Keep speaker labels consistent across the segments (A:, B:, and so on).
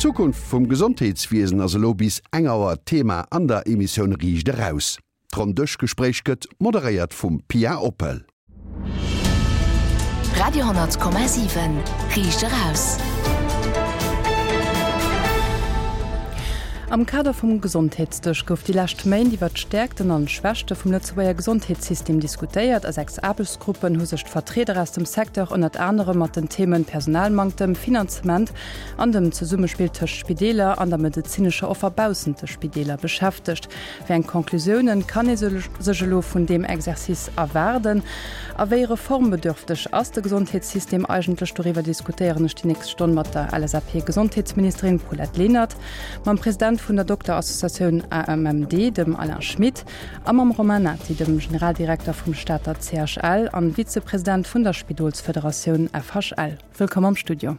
A: D'Zukunft vum Gesondheetswiesen ass elo bis eng Auer Thema an der Emissioun Riicht Eraus. D'Ronndëschgespréich gëtt moderéiert vum Pia Oppel.
B: Radio 10,7 Riicht Eraus.
C: Am Kader vum Gesondheetsdësch gouf déi lescht Méint iwwer d'Stäerkten an d'Schwächte vum Lëtzebuerger Gesondheetssystem diskutéiert. A 6 Aarbechtsgruppen hu sech d'Vertrieder aus dem Secteur ënnert anerem mat den Themen Personalmanktem, Finanzement an dem Zesummespill tëscht Spideeler an der medezinescher Offer baussent de Spideeler beschäftegt. Wéi eng Conclusiounen kann ee sech elo vun deem Exercice erwaarden? A wéi reformbedürfteg ass de Gesondheetssystem eigentlech? Doriwwer diskutéieren ech déi nächst Stonn mat der LSAP-Gesondheetsministerin Paulette Lenert, mam President vun der Dokterassociatioun AMMD, dem Alain Schmit, a mam Romain Nati, dem Generaldirekter vum Stater CHL an Vizepresident vun der Spidolsfederatioun FHL. Wëllkomm am Studio.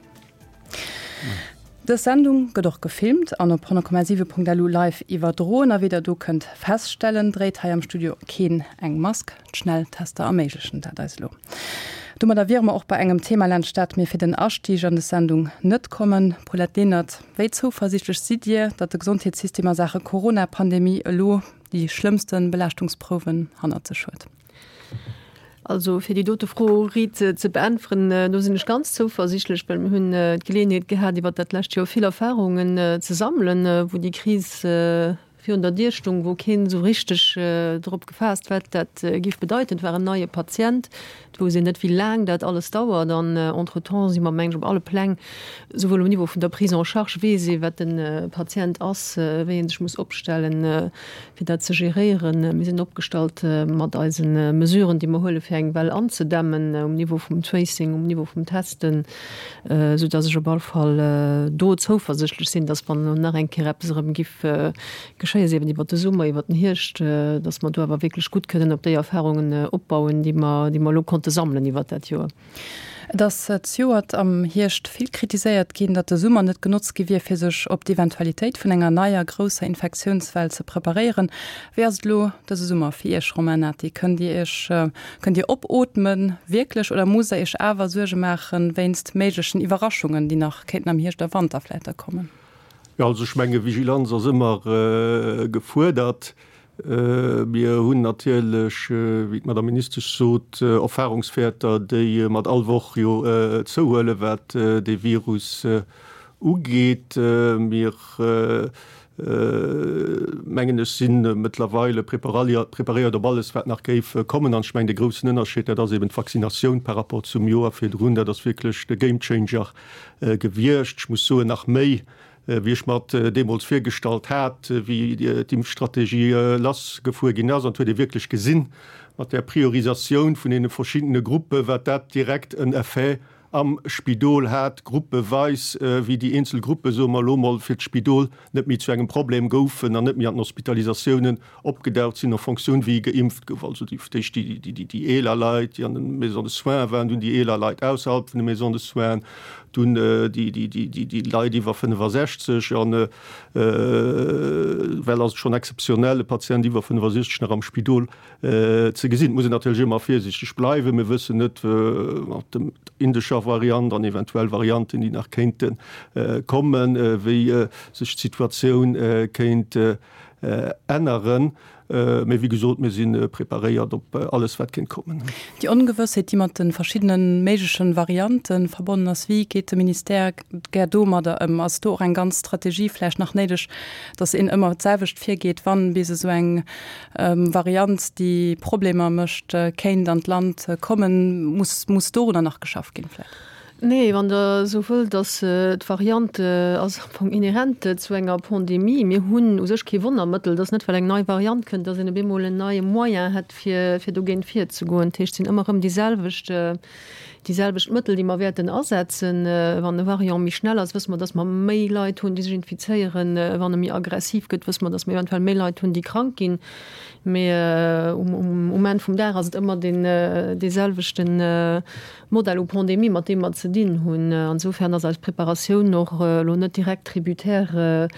C: Dës Sendung gëtt och gefilmt an op 100,7.lu live iwwerdroen. A wéi der do kënnt feststellen, dréit hei am Studio keen eng Mask. D'Schnelltester erméiglechen dat eis elo. Domadder wiere mer och bei engem Thema, laanscht dat mir fir den Astieg an des Sendung net kommen. Paulette Lenert, wéi zouversiichtlech sidd Dir, datt de Gesondheetssystem a Saache Corona-Pandemie elo déi schlëmmste Belaaschtungsprouwen hannert sech huet?
D: Also fir déi dote Fro riit ze beäntweren, do sinn ech ganz zouversichtlech, well mir hunn d'Geleeënheet gehat, iwwert dat lescht Joer vill Erfahrungen ze sammelen, wou déi Kris virun der Dier stung, wou keen esou richteg drop gefaasst, wat dat géif bedeiten. Et war en neie Patient, et wousst een net, wéi laang dat alles dauert. An entretemps si mer, mengen ech, op alle Pläng, souwuel um Niveau vun der Prise en charge weess ee, wat de Patient ass, wéi ee sech muss opstellen, fir dat ze geréieren. Mir sinn opgestallt mat eise Mesuren, déi mer huelen, fir eng Well anzedämmen um Niveau vum Tracing, um Niveau vum Testen, esou dass ech op all Fall do zouversichtlech sinn, dass wann elo nach eng Kéier eppes erëm giff geschéien, sief et iwwert de Summer, iwwert den Hierscht, dass mer do awer wierklech gutt kënnen op déi Erfahrungen opbauen, déi mer, déi mer elo konnte sammelen iwwert dat Joer.
C: Et ass zejoert am Hierscht vill kritiséiert ginn, datt de Summer net genotzt gi wier, fir sech op d'Eventualitéit vun enger neier grousser Infektiounswell ze preparéieren. Wéi ass et elo dëse Summer fir Iech, Romain Nati? Kënnt Dir Iech, kënnt Dir opootmen, wierklech, oder musst Der Iech awer Suerge maachen wéinst méiglechen Iwwerraschungen, déi nach kéinten am Hierscht a Wanter vläicht da kommen?
E: Jo, also ech menge Vigilanz ass ëmmer gefuerdert. Mir hunn natierlech, wéi d'Madame Ministesch sot, Erfahrungswäerter, déi mat all Woch jo zouhuelen, wat dee Virus ugeet. Mir, mengen ech, si mëttlerweile preparéiert op alles, wat nach géif kommen. An ech mengen, de groussen Ënnerscheed, dat ass eben d'Vaccinatioun par rapport zum Joer virdrun. Dat ass wierklech de Gamechanger gewiescht. Ech muss soen, nach méi wéi ech mer et deemools virgestallt hat, wéi d'Impfstrategie lassgefuer ginn ass. An et huet ee wierklech gesinn, mat där Priorisatioun vun deene verschiddene Gruppen, wat dat direkt en Effet am Spidol hat, gruppeweis, wéi déi eenzel Gruppe, soe mer elo mol, fir d'Spidol net méi zu engem Problem goufen an net méi an den Hospitalisatiounen opgedaucht sinn en Fonctioun wéi geimpft gouf, also déi d'éischt déi eeler Leit, déi an de Maisons de soins waren, dunn déi eeler Leit ausserhalb vun de Maisons de soins, dunn déi Leit iwwer 65 an well ass et schonn exzeptionell e Patient iwwer 65 nach am Spidol ze gesinn. Et muss een natierlech ëmmer virsiichteg bleiwen, mir wëssen net mat dem indescher Variant an eventuell Varianten déi nach kéinte kommen, wéi sech d'Situatioun kéint änneren. Mee wéi gesot, mir si preparéiert op alles, wat kéint kommen.
C: Déi Ongewëssheet, déi mat de verschiddene méigleche Variante verbonnen ass, wéi geet de Ministère gär domadder ëm? Ass do och eng ganz Strategie vläicht nach néideg, datt een ëmmer d'selwecht virgeet, wann bis esou eng Variant, déi Problemer mécht, kéint an d'Land kommen? Muss, muss dorunner nach geschafft ginn vläicht?
D: Nee, wann Der esou wëllt, ass d'Variant ass am Fong inhärent zu enger Pandemie. Mir hunn u sech kee Wonnermëttel. Et ass net, well eng nei Variant kënnt, datt een op eemol en neie Moyen hätt, fir, fir dogéint virzegoen. Dat heescht, et sinn ëmmer erëm déi selwecht, déi selwecht Mëttel, déi mer wäerten asetzen. Wann e Variant méi schnell ass, wësse mer, datt mer méi Leit hunn, déi sech infizéieren. Wann e méi aggressiv gëtt, wësse mer, datt mer eventuell méi Leit hunn, déi krank ginn. Mee um, um Enn vum Dag ass et ëmmer deen, dee selwechten. Modell u Pandemie, mat deem mer ze dinn hunn. Insofern ass eis Preparatioun och elo net direkt tributaire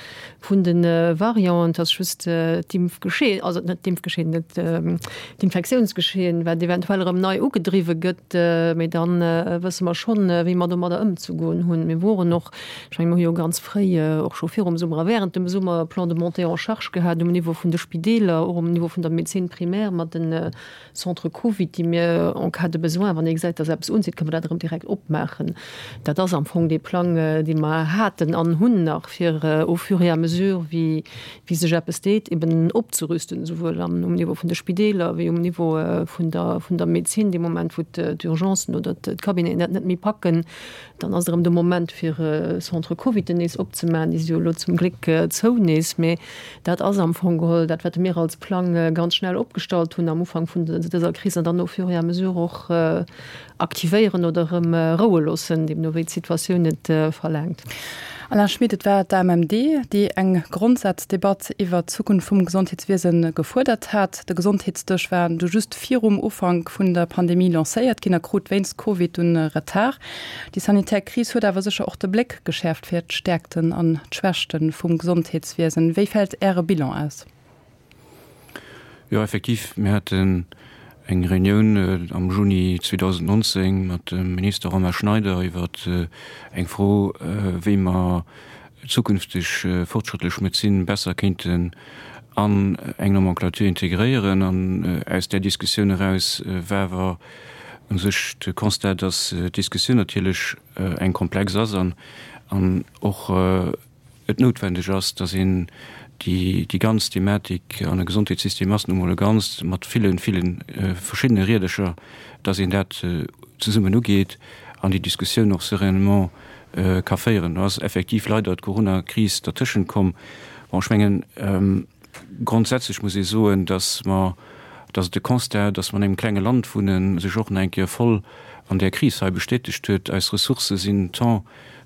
D: vun de Varianten. Et ass just d'Impfgeschehen, also net d'Impfgeschehen, net d'Infektiounsgeschehen, wat eventuell erëm nei ugedriwwe gëtt. Mee da wësse mer schonn, wéi mer domadder ëmzegoen hunn. Mir woren och, ech mengen, mir hu jo ganz fréi, och scho virum Summer a während dem Summer, e Plan de montée en charge gehat um Niveau vun de Spideeler, och um Niveau vun der Médecine primaire mat den Centre Covid, déi mir en cas de besoin, wann ee gesäit, dass eppes unzitt, kënne mer dat erëm direkt opmaachen. Dat ass am Fong dee Plang, dee mer haten an hunn nach, fir au fur et à mesure, wéi sech eppes deet, eben opzerüsten, esouwuel am um Niveau vun de Spideeler wéi um Niveau vun der vun der Medezin. Dee Moment, wou d'Urgencen oder d'Cabineten dat net méi packen, dann ass et erëm de Moment, fir Centre Coviden nees opzemaachen. Déi si jo elo zum Gléck zou nees, mee Dat ass am Fong geholl dat, wat mir als Plang ganz schnell opgestallt hunn am Ufank vun dëser Kris an dann au fur et à mesure och aktivéieren oder erëm roue loossen, deemno wéi d'Situatioun et verlaangt.
C: Alain Schmit, Et war d'AMMD, déi eng Grondsazdebatt iwwert d'Zukunft vum Gesondheetswiese gefuerdert hat. De Gesondheetsdësch war du just virum Ufank vun der Pandemie lancéiert ginn a krut wéinst Covid dunn Retard. Déi sanitär Kris huet awer sécher och de Bléck geschäerft fir d'Stäerkten an d'Schwächte vum Gesondheetswiesen. Wéi fält Äre Bilan aus?
F: Jo, effektiv, mir haten eng Reunioun am Juni 2019 mat dem Minister Romain Schneider iwwer eng Fro, wéi mer zukünfteg fortschrëttlech Medezin besser kéinten an eng Nomenclature integréieren. An aus där Diskussioun eraus war awer u sech de Constat, dass d'Diskussioun natierlech eng komplex ass an och et noutwendeg ass, dass een déi ganz Thematik, an e Gesondheetssystem ass nu mol e Ganzt mat ville, ville verschiddene Riedercher, dass een dat zesummen ugeet an déi Diskussioun och sereinement ka féieren. Do ass effektiv leider d'Coronakris dertëschent komm. Bon, ech mengen, grondsätzlech muss ee soen, dass mer, dass et de Constat, dass mer an engem klenge Land wunnen, sech och nach eng Kéier voll an där Kris hei bestätegt huet. Eis Ressourcë sinn tant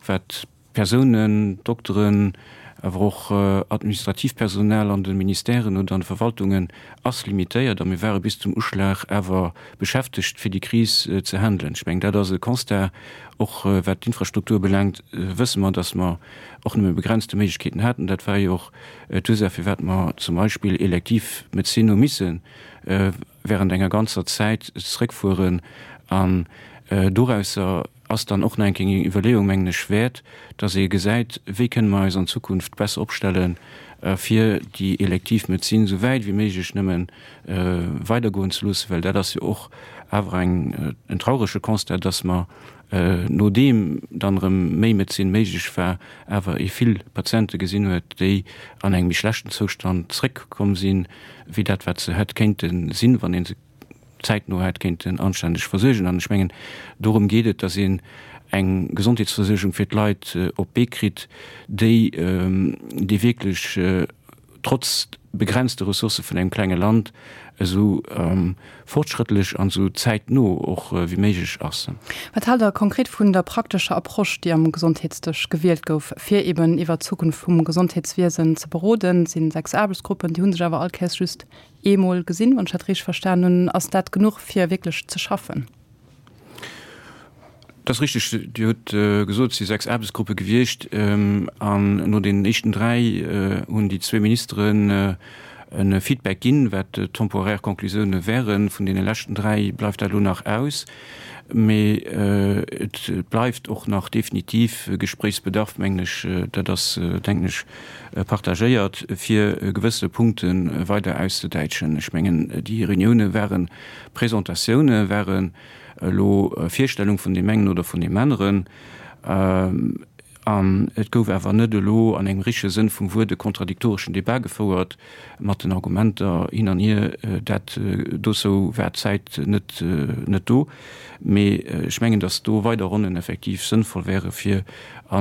F: wat Persounen, Dokteren, awer och administratiivt Personal an de Ministèren oder an de Verwaltungen ass limitéiert a mir ware bis zum Uschlag awer beschäftegt, fir déi Kris ze handelen. Ech mengen, dat ass e Constat. Och wat d'Infrastruktur belaangt, wësse mer, dass mer och nëmme begrenzte Méiglechkeeten haten. Dat war jo och d'Ursaach, firwat mer zum Beispill elektiv Medezin hu misse während enger ganzer Zäit zréckfueren an dorausser ass dann och nach eng Kéier eng Iwwerleeung, mengen ech, wäert, dass ee gesäit, wéi kënne mer eis an Zukunft besser opstellen, fir déi elektiv Medezin esou wäit wéi méiglech nëmme weidergoen ze loossen, well dat ass jo och awer eng, en traurege Constat, dass mer, nodeem dann erëm méi Medezin méiglech war, awer ee vill Patiente gesinn huet, déi an engem méi schlechten Zoustand zréckkomm sinn, wéi dat, wat se hätt kéinte sinn, wann ee se zäitno hätt kéinten anständeg versuergen. An ech mengen, dorëm geet et, dass een eng Gesondheetsversuergung fir d'Leit op d'Bee kritt, déi, déi wierklech trotz begrenzte Ressourcë vun engem klenge Land esou fortschrëttlech an esou zäitno och wéi méiglech ass.
C: Wat haalt Der konkret vun der praktescher Approche, déi am Gesondheetsdësch gewielt gouf, fir eben iwwert d'Zukunft vum Gesondheetswiesen ze beroden? Et sinn 6 Aarbechtsgruppen, déi hu sech awer all Kéiers just eemol gesinn, wann ech dat richteg verstan hunn. Ass dat genuch, fir wierklech ze schaffen?
F: Dat ass richteg. Dir hutt gesot, et si 6 Aarbechtsgruppe gewiescht. An no deenen éischten 3 hunn déi zwee Ministeren e Feedback ginn, wat d'temporaire Conclusioune wären. Vun deene leschten 3 bleift dat elo nach aus. Mee et bleift och nach definitiv Gespréichsbedarf, mengen ech. Dat ass, denken ech, partagéiert, fir gewësse Punkte weider auszedäitschen. Ech mengen, déi Reunioune ware Presentatioune, waren elo Virstellung vun deem engen oder vun deem aneren. An et gouf awer net elo an engem richtege Sënn vum Wuert e kontradiktoreschen Debat gefouert mat den Argumenter hin an hier. Dat dozou war d'Zäit net net do. Mee ech mengen, datt do weider Ronnen effektiv sënnvoll wäre fir a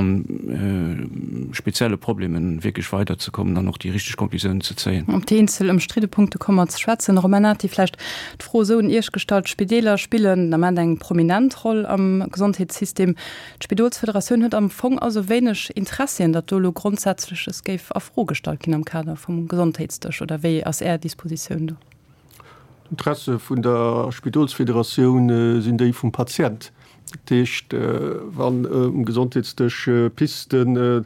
F: spezielle Problemen wierklech weiderzekommen an och déi richteg Conclusiounen ze zéien.
C: Op déi eenzel ëmstridde Punkte komme mer ze schwätzen. Romain Nati, vläicht d'Fro esou un Iech gestallt, D'Spideeler spillen den Ament eng prominent Roll am Gesondheetssystem. D'Spidolsfederatioun huet am Fong also wéineg Interessien, datt do elo Grondsätzleches géif a Fro gestallt ginn am Kader vum Gesondheetsdësch, oder wéi ass Är Dispositioun do?
E: D'Interesse vun der Spidolsfederatioun sinn déi vum Patient. Dat heescht, wann um Gesondheetsdësch Pisten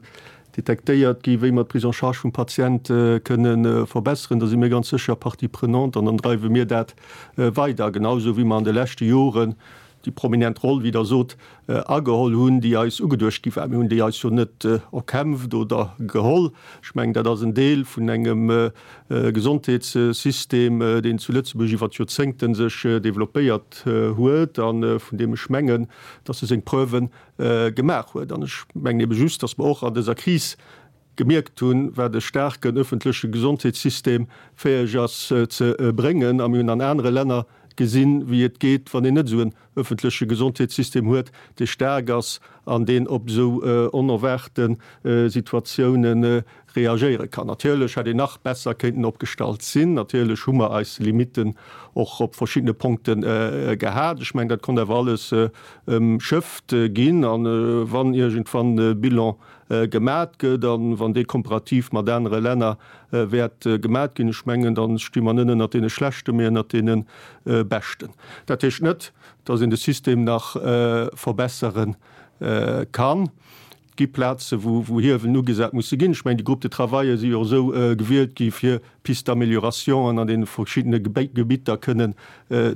E: detektéiert gi wéi mer d'Prise en charge vum Patient kënne verbesseren, da si mir ganz sécher Partie prenante an dann dreiwe mir dat weider, genau esou wéi mer an de leschte Joren déi prominent Roll, wéi Der sot, ageholl hunn, déi eis ugeduecht gi war. Mir hunn déi eis jo net erkämpft oder geholl. Ech mengen, dat ass en Deel vun engem Gesondheetssystem, deen zu Lëtzebuerg iwwer d'Joerzéngte sech developpéiert huet a vun deem ech mengen, dass e seng Preuve gemaach huet. An ech mengen ebe just, dass mer och an dëser Kris gemierkt hunn, wat e staarken öffentleche Gesondheetssystem fäeg ass ze bréngen. A mir hunn an anere Länner gesinn, wéi et geet, wann een net esou en öffentleche Gesondheetssystem huet, dee staark ass an deen op esou onerwaarte Situatiounen reagéiere kann. Natierlech hätt een nach besser kéinten opgestallt sinn. Natierlech hu mer eis Limitten och op verschiddene Punkte gehat. Ech mengen, dat konnt awer alles ëmschëfft ginn. A wann iergendwann e Bilan gemat gëtt a wann dee komparativ mat anere Länner wäert gemat ginn, ech mengen, da sti mer net ënnert deene Schlechten, mee ënnert deene Beschten. Dat heescht net, datt een de System nach verbessere kann. Et gi Plaze wou Hiewelen ugesat musse ginn. Ech mengen, déi Groupes de travail si jo och esou gewielt gi fir Pistes d'améliorationen an deene verschiddene Gebitter kënnen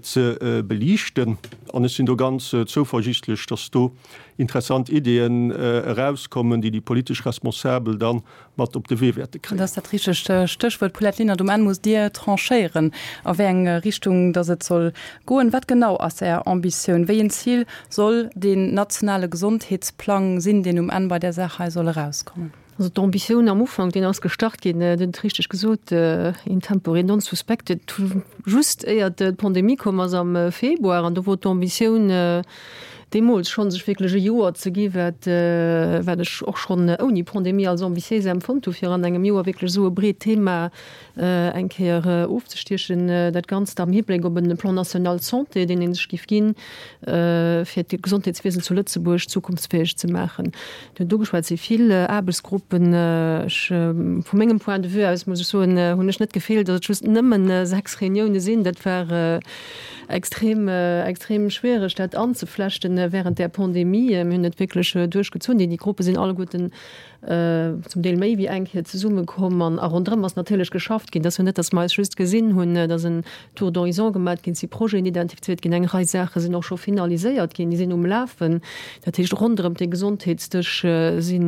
E: ze beliichten. An ech sinn do ganz zouversichtlech, dass do interessant Ideeën erauskommen, déi déi politesch Responsabel da mat op de Wee wäerte kréien.
C: Dat ass dat richtegt Stéchwuert, Paulette Lenert. Um Enn musst Dir tranchéieren, a wéi eng Richtung dass et soll goen. Wat genau ass Är Ambitioun? Wéi en Zil soll deen nationale Gesondheetsplang sinn, deen um Enn bei där Saach hei soll erauskommen?
D: Also d'Ambitioun am Ufank, deen ass gestart ginn, Dir hutt et richteg gesot, in tempore non suspecte, just éiert d'Pandemie komm ass am Februar. An do wor d'Ambitioun deemools schonn, sech wierklech e Joer ze gi wat, wat ech och schonn ouni Pandemie als ambitiéis empfonnt hu, fir an engem Joer wierklech esou e breet Thema eng Kéier ofzestiechen, dat Ganzt am Hibléck op e Plan national santé, deen ee sech géif ginn, fir d'Gesondheetswiesen zu Lëtzebuerg zukunftsfäeg ze maachen. Dir hutt ugeschwat, et si vill Aarbechtsgruppen. Ech, vu mengem Point de vue aus, muss ech soen, hunn ech net d'Gefill, datt et just nëmmen 6 Reunioune sinn. Dat war extrem, extrem schwiereg, dat anzeflechten während där Pandemie. Mir hunn et wierklech duerchgezunn. Déi Gruppe sinn alleguerten zum Deel méi wéi eng Kéier zesummekomm an a ronderëm ass natierlech geschafft ginn. Et ass jo net, datt mer eis just gesinn hunn, et ass en Tour d'horizon gemat ginn, et si Projeten identifiziert ginn, eng Rei Saache sinn och scho finaliséiert ginn, déi sinn um Lafen. Dat heescht, ronderëm dee Gesondheetsdësch si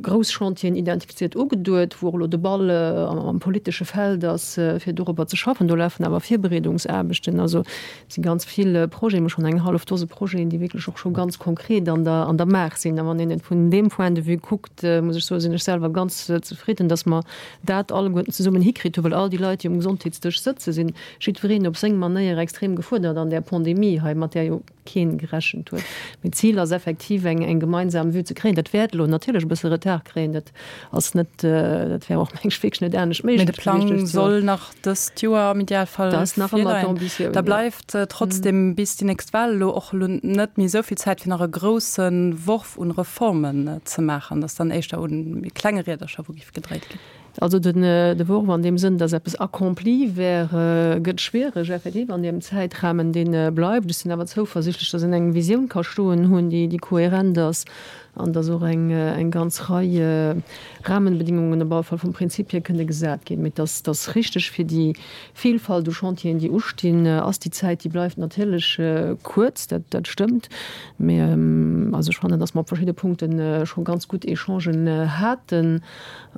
D: grouss Chantieren identifiziert, ugeduet, wou och elo de Ball am politesche Feld ass, fir dorobber ze schaffen. Do lafen awer Virbereedungsaarbechten. Also Et si ganz vill Projeten, emol schonn eng hallef Dose Projeten, déi wierklech och scho ganz konkret an der, an der Maach sinn. A wann een et vun deem Point de vue kuckt, muss ech soen, sinn ech selwer ganz zefridden, dass mer dat alleguerten zesummen hikritt hunn, well all déi Leit, déi um Gesondheetsdësch sëtzen, sinn jiddwereen op seng Manéier extrem gefuerdert an där Pandemie hei, mat där jo keen gerechent huet. Mee d'Zil ass effektiv, eng, eng gemeinsam Vue ze kréien. Dat wäert elo natierlech e bësse Retard kréien, dat ass net, dat wär och, meng ech, wierklech net anescht
C: méiglech gewiescht. Mee de Plang soll nach dëst Joer am Idealfall virleien. Da bleift trotzdem bis déi nächst Wahl elo och elo net méi esou vill Zäit fir nach e grousse Worf un Reformen ze maachen. Dat ass dann éischter un méi klenge Riedercher wou géif gedréit ginn.
D: Also den de Worf an deem Sënn, datt eppes accompli wär, gëtt schwiereg effektiv an deem Zäitrahmen dee bleift. Ech sinn awer zouversichtlech, datt een eng Visioun ka stoen hunn, déi déi kohärent ass an datt och eng eng ganz Rei Rahmenbedingungen op alle Fall vum Prinzip hier kënne gesat ginn. Mee dass dass richteg fir déi Vielfalt u Chantieren, déi ustinn, ass déi Zäit, déi bleift natierlech kuerz, dat dat stëmmt. Mee also ech fannen, dass mer op verschidde Punkte scho ganz gutt Echangen haten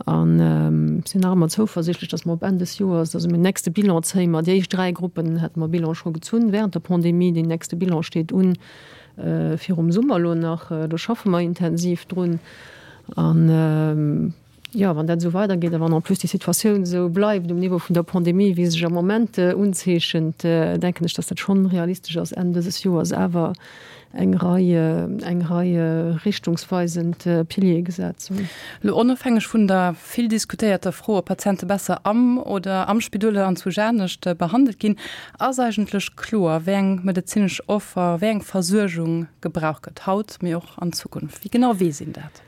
D: an sinn nach ëmmer zouversichtlech, dass mer op Enn des Joers, also den nächste Bilan zéie mer, déi éischt 3 Gruppen hate mer Bilan scho gezunn während der Pandemie, deen nächste Bilan steet un virum Summer elo nach, do schaffe mer intensiv drun. An, jo, wann dat esou weidergeet a wann en plus déi Situatioun esou bleift um Niveau vun der Pandemie, wéi se sech am Moment unzeechent, denken ech, dass dat schonn realistesch ass, Enn dëses Joers awer eng Rei, eng Rei richtungsweisend Piliere gesat ze hunn.
C: Elo onofhängeg vun der vill diskutéierter Fro, ob Patiente besser am oder am Spidol oder anzwousch anescht behandelt ginn, ass eigentlech kloer, wéi eng medezinesch Offer, wéi eng Versuergung gebraucht gëtt, haut, mee och an Zukunft. Wéi genau weess een dat?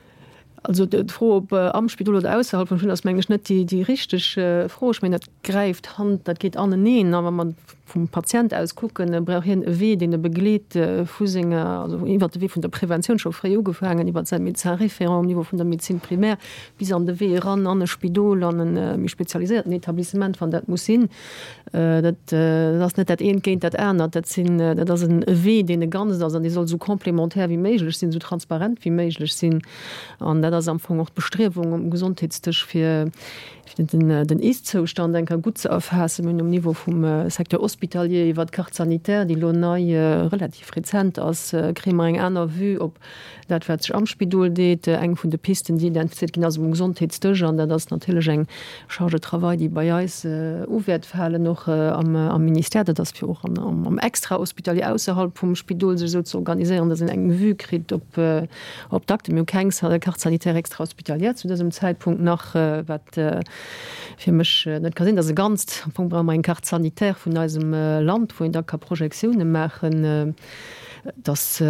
D: Also d'Fro, ob am Spidol oder ausserhalb vum Spidol, ass mengen ech net déi richteg Fro. Ech mengen, dat gräift Hand, dat geet aneneen. A wa mer. vum Patient aus kucken, brauch hien e Wee, deen e begleet vu senger, also iwwert de Wee vun der Preventioun, scho fréi ugefaangen, iwwert säi Médecin référent um Niveau vun der Médecine primaire bis an de Wee eran an e Spidol, an e méi spezialiséierten Etablissement, wann dat muss sinn. Dat ass net dat eent géint dat anert, dat sinn, dat ass e Wee, deen e Ganzt ass an dee soll esou complémentaire wéi méiglech sinn, esou transparent wéi méiglech sinn. An dat ass am Fong och d'Bestriewung um Gesondheetsdësch, fir den Ist-Zoustand eng Kéier gutt ze erfaassen. Mir hunn um Niveau vum Secteur hospitalier iwwert d'Carte sanitaire, déi elo nei, relativ rezent ass, kréie mer eng aner Vue op dat, wat sech am Spidol deet. Eng vun de Pisten, déi identifiziert ginn ass um Gesondheetsdësch, an dat ass natierlech eng Charge de travail, déi bei eis u wäert falen, och am Ministère. Dat ass fir och am Extra-hospitalier ausserhalb vum Spidol sech esou ze organiséieren, datt een eng Vue kritt op Op d'Akte, mir hu keng Carte sanitaire extra-hospitalière zu dësem Zäitpunkt nach, wat fir mech net ka sinn. Dat ass e Ganzt. Am Fong brauche mer eng Carte sanitaire vun eisem Land, wou een da ka Projektiounen maachen. Et ass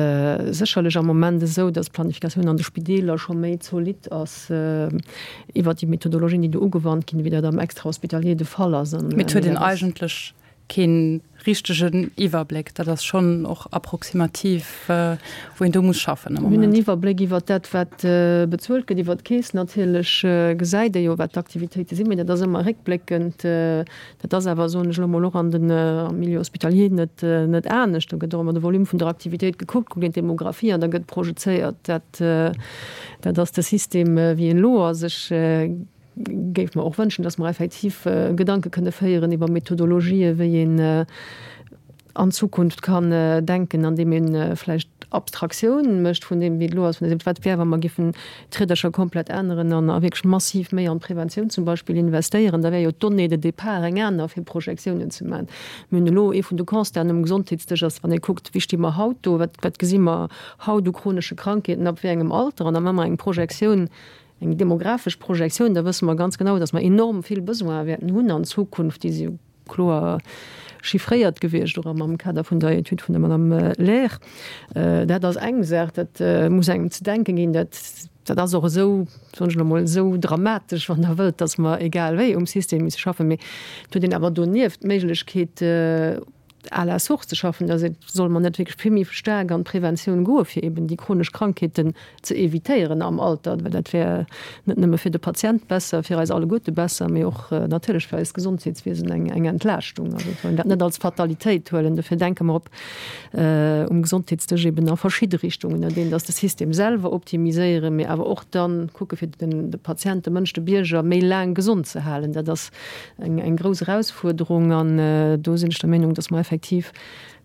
D: sécherlech am Moment esou, dass d'Planifikatioun an de Spideeler scho méi zolidd ass iwwert déi Methodologien, déi do ugewannt ginn, wéi dat am Extra-hospitalier de Fall ass.
C: Mee et huet een eigentlech kee richtegen Iwwerbléck. Dat ass schonn och approximativ, wou een do muss schaffen
D: am Moment. Mir hunn en Iwwerbléck iwwer dat, wat bezuelt gëtt, iwwer d'Keess natierlech gesäit ee jo, wat d'Aktivitéite sinn, mee dat ass ëmmer réckbléckend. Dat ass awer, soen ech elo mol, och an den, am Milieu hospitalier net, net anescht. Do gëtt och ëmmer de Volume vun der Aktivitéit gekuckt, kuckt een d'Demographie an da gëtt projezéiert. Dat, dat ass de System, wéi en elo ass. Ech géif mer och wënschen, dass mer effektiv Gedanke kënne féieren iwwer Methodologië wéi een an Zukunft kann denken, andeem ee vläicht Abstraktioun mécht vun deem, wéi et elo ass, vun deem, wat wär, wa mer giffen d'Riedercher komplett änneren an a wierklech massiv méi an d'Preventioun zum Beispill investéieren. Da wär jo d'Donnée de départ eng aner, fir Projektiounen ze maachen. Mir hunn elo, ee vun de Constaten um Gesondheetsdësch ass, wann ee kuckt, wéi sti mer haut do, wat, wat gesi mer haut u chronesche Krankheeten, ab wéi engem Alter, an da maache mer eng Projektioun, Eng demografesch Projektioun, da wësse mer ganz genau, datt mer enorm vill Besoine wäerten hunn an Zukunft. Déi si jo kloer chiffréiert gewiescht, och am Kader vun der Etüd vun der Madame Lair. Dat ass eng Saach, dat muss engem ze denken ginn. Dat, dat ass och esou, soen ech elo mol, esou dramatesch, wann Der wëllt, datt mer egal wéi um System misse schaffen. Mee et huet een awer donieft d'Méiglechkeet, à la source ze schaffen, da solle mer net wierklech vill méi staark an d'Preventioun goe fir eben déi chronesch Krankheeten ze évitéieren am Alter, well dat wär net nëmme fir de Patient besser, fir eis alleguerte besser, mee och natierlech fir eist Gesondheetswiesen eng eng Entlaaschtung. Also et soll een dat net als Fatalitéit huelen. Dofir denke mer op um Gesondheetsdësch eben a verschidde Richtungen, an deenen dass de System selwer optimiséieren, mee awer och dann kucke fir den de Patient, de Mënsch, de Bierger méi laang gesond ze halen. Dat ass eng eng grouss Erausfuerderung an do sinn ech der Meenung, dass mer effektiv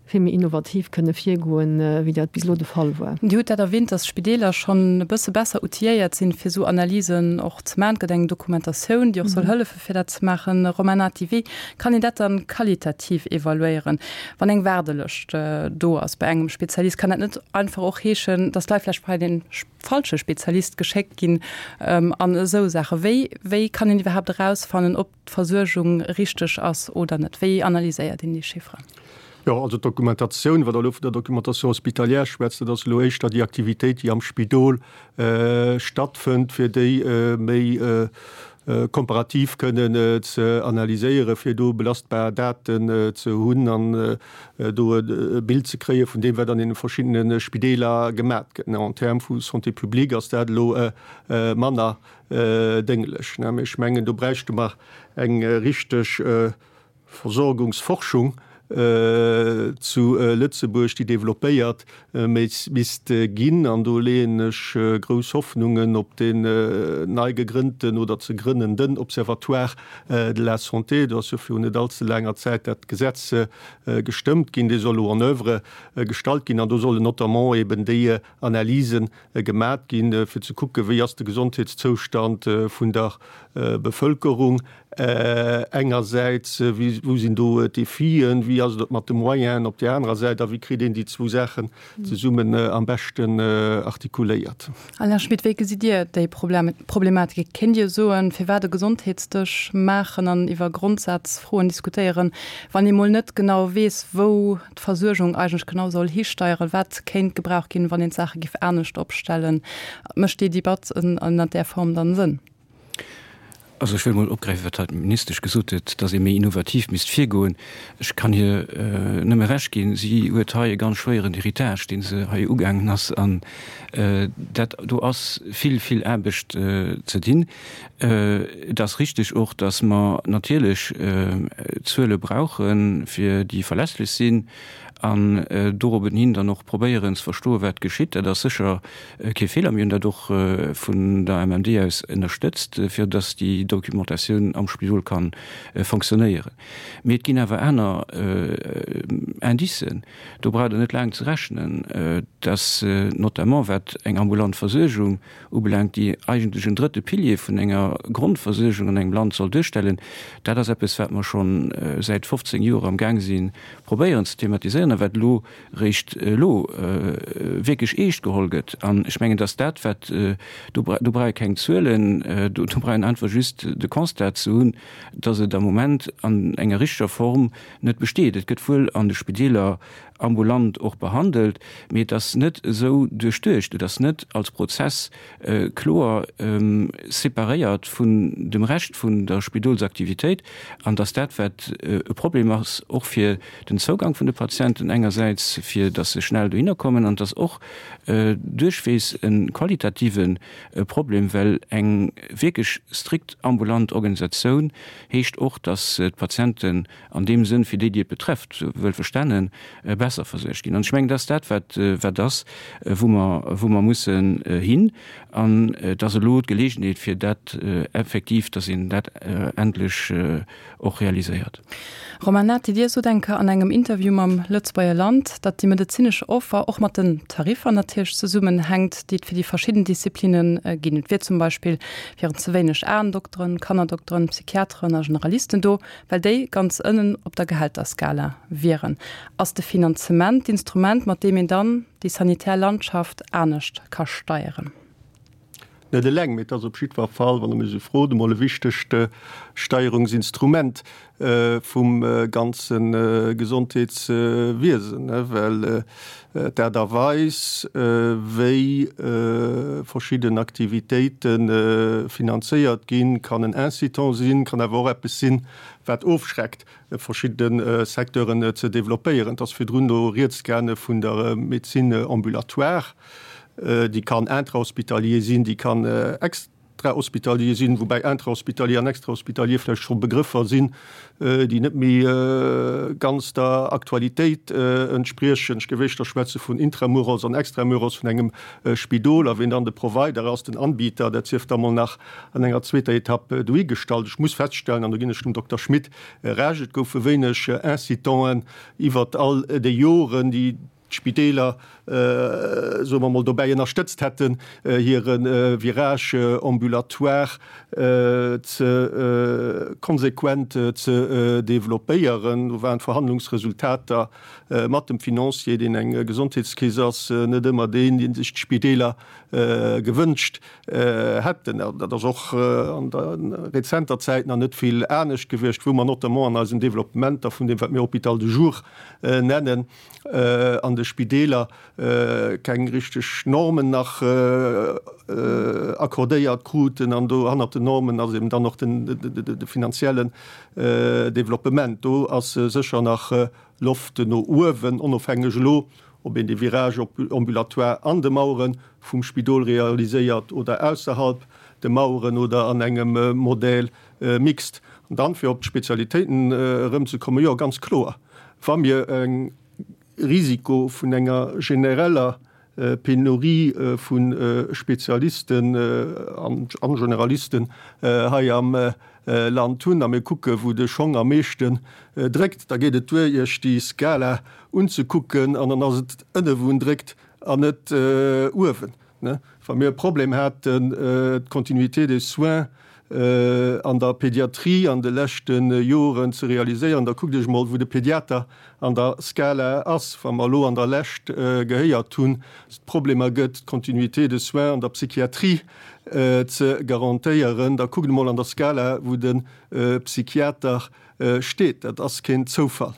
D: vill méi innovativ kënne virgoen, wéi dat bis elo de Fall war.
C: Dir hutt dat erwähnt, dass d'Spideeler schonn e bësse besser outilléiert sinn, fir esou Analysen och ze maachen. Et gëtt eng Dokumentatioun, déi och soll hëllefe fir dat ze maachen. Romain Nati, wéi kann een dat dann qualitativ evaluéieren, wann eng Waardelëscht do ass bei engem Spezialist? Kann dat net einfach och heeschen, dass d'Leit vläicht bei den falsche Spezialist geschéckt ginn an esou Saachen. Wéi, wéi kann een iwwerhaapt erausfannen, ob d'Versuergung richteg ass oder net? Wéi analyséiert een déi Chifferen?
E: Jo, also d'Dokumentatioun, wat Der elo vun der Documentation hospitalière schwätzt, dat ass elo éischter déi Aktivitéit, déi am Spidol stattfënnt, fir déi méi komparativ kënnen ze analyséieren, fir do belastbar Daten ze hunn an do e Bild ze kréie vun deem, wat an deene verschiddene Spideeler gemat gëtt. En termes vu Santé publique ass dat elo manner dénglech. Mee ech mengen, do bräichte mer eng richteg Versorgungsforschung zu Lëtzebuerg, déi développéiert misst ginn. An do leeën ech grouss Hoffnungen op deen nei gegrënnten oder ze grënnenden Observatoire de la santé. Do ass jo virun net allze laanger Zäit dat Gesetz gestëmmt ginn. Dee soll elo en oeuvre gestallt ginn an do sollen notamment eben déi Analysen gemat ginn, fir ze kucken, wéi ass de Gesondheetszoustand vun der Bevëlkerung engersäits, wou sinn do d'Defien, wéi ass et mat de Moyenen op där anerer Säit a wéi kritt een déi zwou Saachen zesummen am beschten artikuléiert.
C: Alain Schmit, wéi gesitt Dir déi Problematik? Kéint Dir soen, firwat e Gesondheetsdësch maachen an iwwer Grondsazfroen diskutéieren, wann ee mol net genau weess, wou d'Versuergung eigentlech genau soll histeieren, wat kéint gebraucht ginn, wann een d'Saache giff anescht opstellen? Mécht déi Debatt ënnert där Form dann Sënn?
F: Also ech wëll mol opgräifen, wat hei d'Ministesch gesot huet, dass ee méi innovativ misst virgoen. Ech kann hir nëmme Recht ginn. Si huet hei e ganz schwéieren Héritage, dee se hei ugaangen ass. An dat do ass vill, vill Aarbecht ze dinn. Et ass richtig och, dass mer natierlech Zuele brauchen, fir déi verlässlech sinn an dorobben hin dann och probéieren ze verstoen, wat geschitt. Dat ass sécher kee Feeler. Mir hunn dat och vun der MMD aus ënnerstëtzt, fir dass déi Documentatioun am Spidol ka fonctionnéieren. Mee et ginn awer aner Indicen, do braucht Der net laang ze rechnen, dass notamment wat eng ambulant Versuergung ubelaangt, déi eigentlech en drëtte Pilier vun enger Grondversuergung an engem Land soll duerstellen, dat ass eppes, wat mer scho säit 15 Joer am Gaang si probéieren ze thematiséieren a wat elo réischt elo wierklech eescht geholl gëtt. An ech mengen, dass dat, wat do, do brauch ee keng Zuelen, do brauch een einfach just de Constat ze hunn, dass et am Moment an enger richteger Form net besteet. Et gëtt wuel an de Spideeler ambulant och behandelt, mee et ass net esou duerchduecht, et ass net als Prozess kloer separéiert vun dem Rescht vun der Spidolsaktivitéit an dass dat, wat e Problem ass, och fir den Zougang vun de Patienten engersäits, fir dass se schnell dohinner kommen, an dass och duerchweegs e qualitative Problem, well eng wierklech strikt ambulant Organisatioun heescht och, dass d'Patienten an deem Sënn fir déi, déi et betrefft, wuel verstanen, besser versuergt ginn. An ech mengen, dat ass dat, wat, wat ass, wou mer, wou mer mussen hin. An et ass elo d'Gelegenheet, fir dat effektiv, dass een dat endlech och realiséiert.
C: Romain Nati, Dir sot eng Kéier an engem Interview mam Lëtzebuerger Land, datt déi medezinesch Offer och mat den Tariffer natierlech zesummenhänkt, déi et fir déi verschidden Disziplinne ginn. Et wier zum Beispill wieren ze wéineg Aendokteren, Kannerdokteren, Psychiateren a Generalisten do. Well déi ganz ënnen op der Gehälterskala wieren, ass de Finanzement d'Instrument, mat deem een dann déi sanitär Landschaft anescht ka steieren.
E: Net eleng, mee et ass op jiddwer Fall, wann Der mech esou frot, emol e wichtegt Steierungsinstrument vum ganze Gesondheetswiesen, well d'Aart a Weis, wéi verschidden Aktivitéite finanzéiert ginn, kann en Incitant sinn, kann awer och eppes sinn, wat ofschreckt, verschidde Secteuren ze developpéieren. Et ass virdrun do rieds gaange vun der Médecine ambulatoire. Déi kann intrahospitalier sinn, déi kann extrahospitalier sinn, woubäi intrahospitalier an extrahospitalier vläicht scho Begrëffer sinn, déi net méi ganz der Aktualitéit entspriechen. Ech géif éischter schwätze vun Intramuros an Extramuros vun engem Spidol a wien dann de Provider ass, den Anbieter, dat sief da mol nach an enger zweeter Etapp dohigestallt. Ech muss feststellen, an do ginn ech dem Dokter Schmit Recht, et goufe wéineg Incitanten iwwert all déi Joren, déi d'Spideeler, soe mer mol, dobäi ënnerstëtzt hätten, hire Virage ambulatoire ze konsequent ze developpéieren. Do waren d'Verhandlungsresultater mat dem Financier, deen eng Gesondheetskeess ass, net ëmmer deen, dee sech d'Spideeler gewënscht hätten. Dat ass och an der rezenter Zäit nach net vill anescht gewiescht, wou mer notamment an eisen Developpementer vun deem, wat mir Hôpital de jour nennen, an de Spideeler keng richteg Normen nach accordéiert kruten an do hannert den Normen ass eben dann och de finanziellen Developpement. Do ass sécher nach Loft no uewen, onofhängeg elo ob een de Virage ambulatoire an de Mauere vum Spidol realiséiert oder ausserhalb de Maueren oder an engem Modèle mixte. An dann, fir op d'Spezialitéiten erëmzekommen, jo, ganz kloer, Wa mir e Risiko vun enger genereller Penurie vu Spezialisten an Generalisten hei am Land hunn a mir kucke wou de Schong am meeschten dréckt, da geet et duer Iech déi Skala unzekucken an dann ass et ënne wou en dréckt an net uewen. Wa mir e Problem haten, d'Continuité des soins an der Pédiatrie an de leschte Joren ze realiséieren, da kuckt Iech emol, wou de Pédiater an der Skala ass. Wa mer elo an der Lescht gehéiert hunn, dass et Problemer gëtt, d'Continuité des soins an der Psychiatrie ze garantéieren, da kuckt emol an der Skala, wou de Psychiater steet. Dat ass keen Zoufall.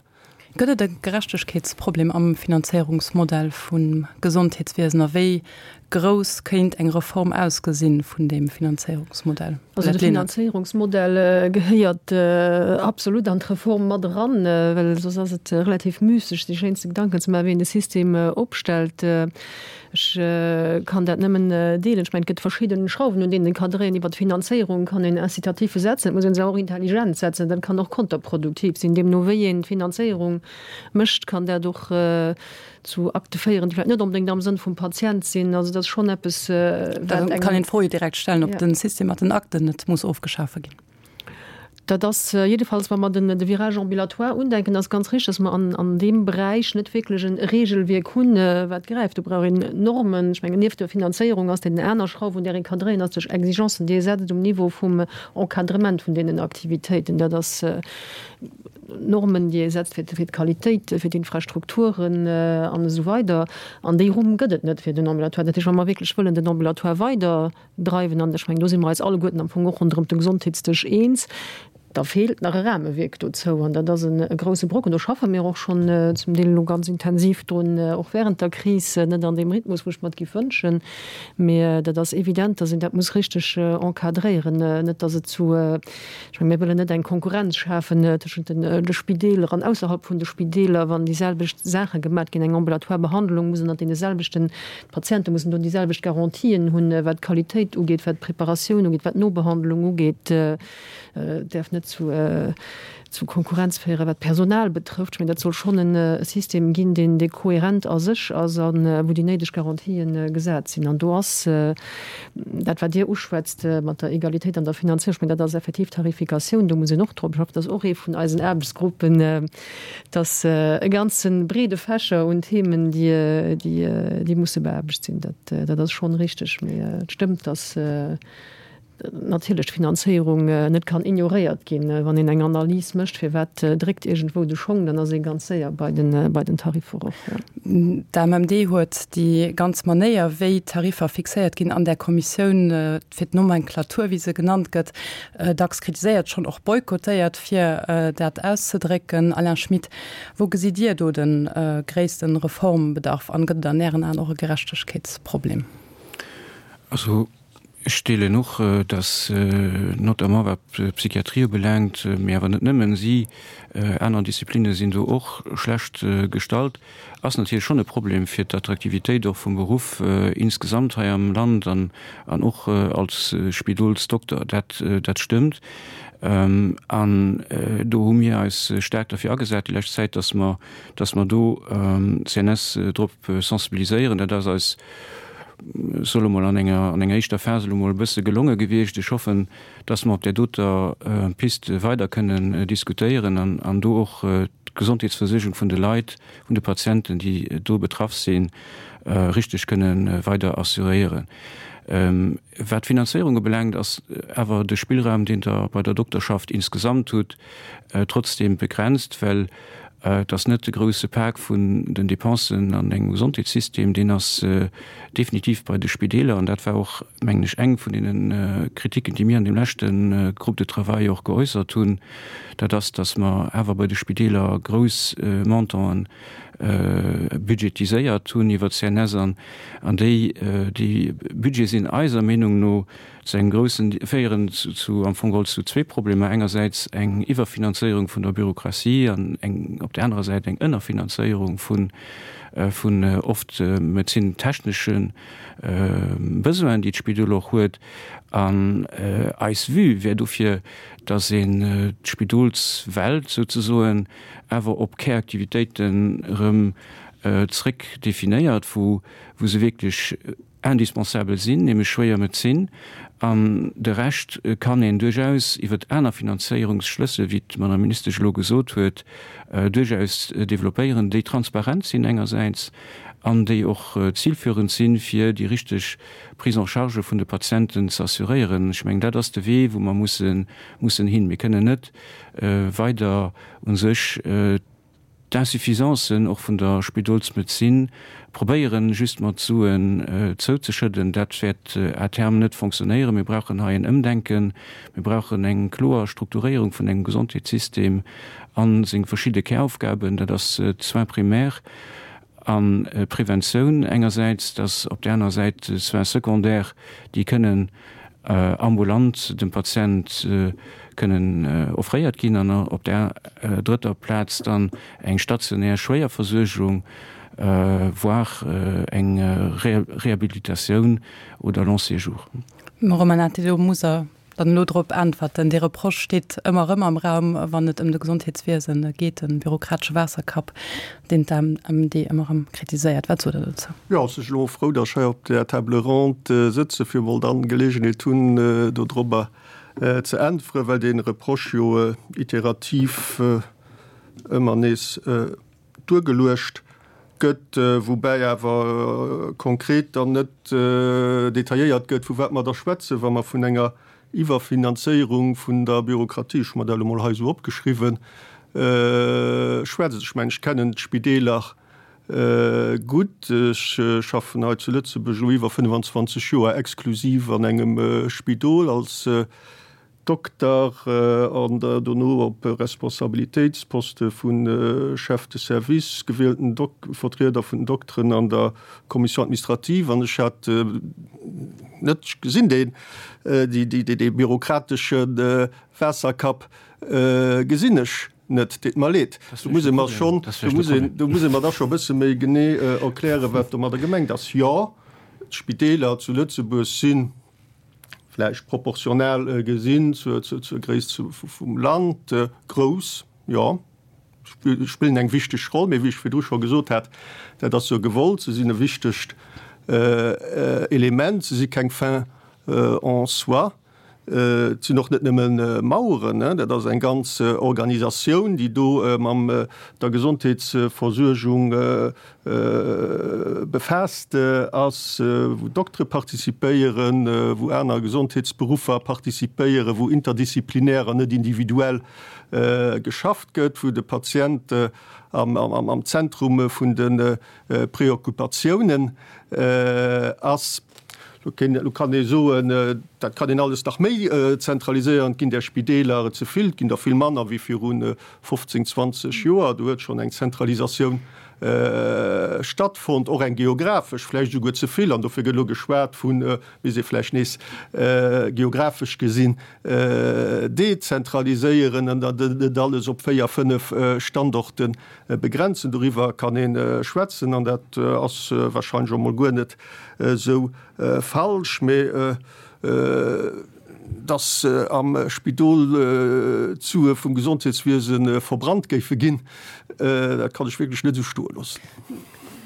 C: Gëtt et e Gerechtegkeetsproblem am Finanzéierungsmodell vum Gesondheetswiesen a wéi. grouss kéint eng Reform ausgesinn vun deem Finanzéierungsmodell?
D: Also de Finanzéierungsmodell gehéiert absolut an d'Reform mat eran, well soss ass et relativ müsseg, sech schéinste Gedanken ze maachen, wéi een de System opstellt. Ech kann dat nëmmen deelen. Ech mengen, et gëtt verschidde Schrauwen, un deenen ee ka dréien. Iwwert d'Finanzéierung kann een Incitatiffe setzen, et muss ee se och intelligent setzen. Dat kann och konterproduktiv sinn. Deemno wéi een d'Finanzéierung mécht, kann dat och zu Akte féieren, déi vläicht net onbedéngt am Sënn vum Patient sinn. Also dat ass schonn eppes,
C: wat eng. Kann een d'Fro jo direkt stellen, ob de System mat den Akten net muss ofgeschafe ginn.
D: Dat ass jiddefalls, wa mer den de Virage ambulatoire undenken, ass ganz richtig, dass mer an an deem Beräich net wierklech e Regelwierk hunn, wat gräift. Do brauch een Normen. Ech mengen, nieft der Finanzéierung ass deen aner Schrauf, un där ee ka dréien, ass duerch Exigencen, déi ee setzt um Niveau vum Encadrement vun deenen Aktivitéiten. Dat ass Normen, déi ee setzt fir d'Qualitéit, fir d'Infrastrukturen an esou weider. An déi Rumm gëtt et net fir den Ambulatoire. Dat heescht, wa mer wierklech wëllen den Ambulatoire weiderdreiwen, an ech mengen, do si mer eis alleguerten am Fong och ronderëm de Gesondheetsdësch eens, da feelt nach e Rahmewierk dozou. An dat ass e grouse Brocken. Do schaffe mir och schonn zum Deel elo ganz intensiv drun, och während der Kris, net an deem Rhythmus, wou ech mer et géif wënschen, mee dat ass evident, dass een dat muss richteg encadréieren, net dass et zu Ech mengen, mir wëllen net eng Konkurrenz schafen tëschent de Spideeler an ausserhalb vun de Spideeler, wann déi selwecht Saache gemat ginn. Eng ambulatoire Behandlung muss ënnert deene selwechten, d'Patiente mussen do déi selwecht Garantien hunn, wat d'Qualitéit ugeet, wat d'Preparatioun ugeet, wat d'Nobehandlung ugeet. Et däerf net zu zu Konkurrenz féieren, wat d'Personal betrëfft. Ech mengen, dat soll schonn e System ginn, deen, dee kohärent a sech ass a wou déi néideg Garantië gesat sinn. An do ass dat, wat Dir uschwätzt mat der Egalitéit an der Finanzierung, ech mengen, dat ass effektiv d'Tarifikatioun, do muss een och drop schaffen. Dat ass och ee vun eisen Aarbechtsgruppen. Et ass e ganze breede Fächer un Themen, déi, déi, déi musse beaarbecht sinn. Dat, dat ass schonn richteg. Mee et stëmmt, dass, natierlech d'Finanzéierung net kann ignoréiert ginn. Wann een eng Analys mécht, firwat dréckt iergendwou de Schong, dann ass ee ganz séier bei den, bei den Tariffer och.
C: D'AMMD huet déi ganz Manéier, wéi d'Tariffer fixéiert ginn an där Kommissioun fir d'Nomenklatur, wéi se genannt gëtt, dacks kritiséiert, schonn och boykottéiert, fir dat auszedrécken. Alain Schmit, wou gesitt Dir do de gréisste Reformbedarf an gëtt et an Ären Aen och e Gerechtegkeetsproblem?
F: Also Ech deelen och, dass notamment wat d'Psychiatrie ubelaangt, mee awer net nëmmen si, aner Disziplinne sinn do och schlecht gestallt, ass natierlech schonn e Problem fir d'Attraktivitéit och vum Beruff insgesamt hei am Land an och als Spidolsdokter. Dat, dat stëmmt. An do hu mir eis staark derfir agesat déi lescht Zäit, dass mer, dass mer do d'CNS drop sensibiliséieren. Dat ass eis soll emol an enger, an enger éischter Phas elo mol e bësse gelonge gewiescht. Ech hoffen, dass mer op där doter Piste weider kënnen diskutéieren an, an do och d'Gesondheetsversuergung vun de Leit, vun de Patienten, déi do betraff sinn, richteg kënnen weider assuréieren. Wat d'Finanzéierung ubelaangt, ass awer de Spillraum, deen Der bei der Dokterschaft insgesamt hutt, trotzdem begrenzt, well Et ass net de grouse Pak vun den Dépensen an engem Gesondheetssystem, deen ass definitiv bei de Spideeler. An dat war och, mengen ech, eng vun deene Kritiken, déi mir an deem leschte Groupe de travail och geäussert hunn, dat ass, datt mer awer bei de Spideeler grouss Montanten budgetiséiert hunn iwwer d'CNS. An déi Budgete sinn eiser Meenung no Zu engem groussen, féieren zu am Fong geholl zu zwee Problemer, engersäits eng Iwwerfinanzéierung vun der Bürokratie an eng op där anerer Säit eng Ënnerfinanzéierung vun vun oft medezintechnesche Besoinen, déi d'Spidol och huet. An eis Vue wär dofir, datt een d'Spidolswelt souzesoen awer op Käraktivitéiten erëm zréck definéiert, wou wou se wierklech indispensabel sinn, nämlech schwéier Medezin, an de Rescht kann een duerchaus iwwer aner Finanzéierungsschlëssel, wéi d'Madame Ministesch elo gesot huet, duerchaus développéieren, déi transparent sinn engersäits an déi och zilführend sinn, fir déi richteg Prise en charge vun de Patienten ze assuréieren. Ech mengen, dat ass de Wee, wou mer mussen mussen hin. Mir kënnen net weider u sech D'Insuffisancen och vun der Spidolsmedezin probéieren just mat Suen zouzeschëdden, dat wäert à terme net fonctionnéieren. Mir brauchen hei en Ëmdenken, mir brauchen eng kloer Strukturéierung vun engem Gesondheetssystem a seng verschidde Käraufgaben, dat ass d'Soins primaires. A Preventioun engersäits, dass op där anerer Säit Soins secondaires, déi kënnen ambulant dem Patient kënnen offréiert ginn, an op där drëtter Plaz dann eng stationär Schwéierversuergung, voire eng Rehabilitatioun oder long séjour.
C: Mme Romanati, do muss Der dann elo drop äntwerten. Dee Reproche steet ëmmer erëm am Raum, wann et ëm de Gesondheetswiese geet, de bürokratesche Waasserkapp, deen d'AMMD ëmmer erëm kritiséiert. Wat sot Der dozou?
E: Jo, ech sinn elo frou, datt ech hei op där Table ronde sëtze fir emol dann d'Geleegenheet hunn, dodrobber ze äntweren, well dee Reproche jo iterativ ëmmer nees duergeluecht gëtt, woubäi awer konkret dann net detailléiert gëtt, vu wat mer da schwätzen, wa mer vun enger Iwwerfinanzéierung vun der Bürokratie, ech hu mer dat elo mol hei esou opgeschriwwen, schwätzen. Ech mengen, ech kennen d'Spideeler gutt. Ech schaffen hei zu Lëtzebuerg elo iwwer 25 Joer exklusiv an engem Spidol als Dokter an dono op Responsabilitéitsposte vu Chef de service, gewielten Vertrieder vun den Dokteren an der Commission administrative. An ech hat net gesinn, deen, dee bürokratesche Waasserkapp gesinn ech net. Deet mer leed. Do muss ee mer schonn, do muss ee mer da scho e bësse méi genee erklären, wat domadder gemengt ass. Jo, d'Spideeler zu Lëtzebuerg sinn vläicht proportional gesinn zur Gréisst vum Land grouss, jo, spillen eng wichteg Roll. Mee wéi ech virdru scho gesot hat, dat ass jo gewollt, se sinn e wichtegt Element, se si keng Fin en soi. Et sinn och net nëmme Maueren, dat ass eng ganz Organisatioun, déi do mam der Gesondheetsversuergung befaasst ass, wou Doktere participéieren, wou aner Gesondheetsberuffer participéieren, wou interdisziplinär an net individuell geschafft gëtt, wou de Patient am Zentrum vun de Preoccupatiounen ass. Lo kann ee soen, dat kann een alles nach méi zentraliséieren, et ginn där Spideeler ze vill, et ginn der vill manner wéi viru 15, 20 Joer. Do huet schonn eng Zentralisatioun stattfonnt, och eng geographesch, vläicht esouguer ze vill. An dofir gëtt elo geschwat vu misst ee vläicht nees geographesch gesinn dezentraliséieren an dann net alles op 4, 5 Standorte begrenzen. Doriwwer kann ee schwätzen an dat ass wahrscheinlech och emol guer net esou falsch. Mee dass am Spidol d'Sue vum Gesondheetswiese verbrannt géife ginn, dat kann ech wierklech net esou stoe loossen.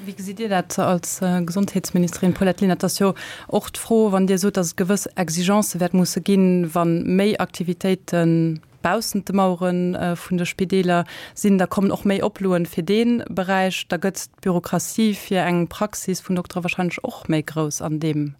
C: Wéi gesitt Dir dat als Gesondheetsministerin Paulette Lenert? Et ass jo och d'Fro, wann Dir sot, dass et gewëss Exigencë wäert musse ginn, wa méi Aktivitéite baussent de Mauere vun de Spideeler sinn, da kommen och méi Oploen fir dee Beräich, da gëtt d'Bürokratie fir eng Praxis vun Doktere wahrscheinlech och méi grouss an deem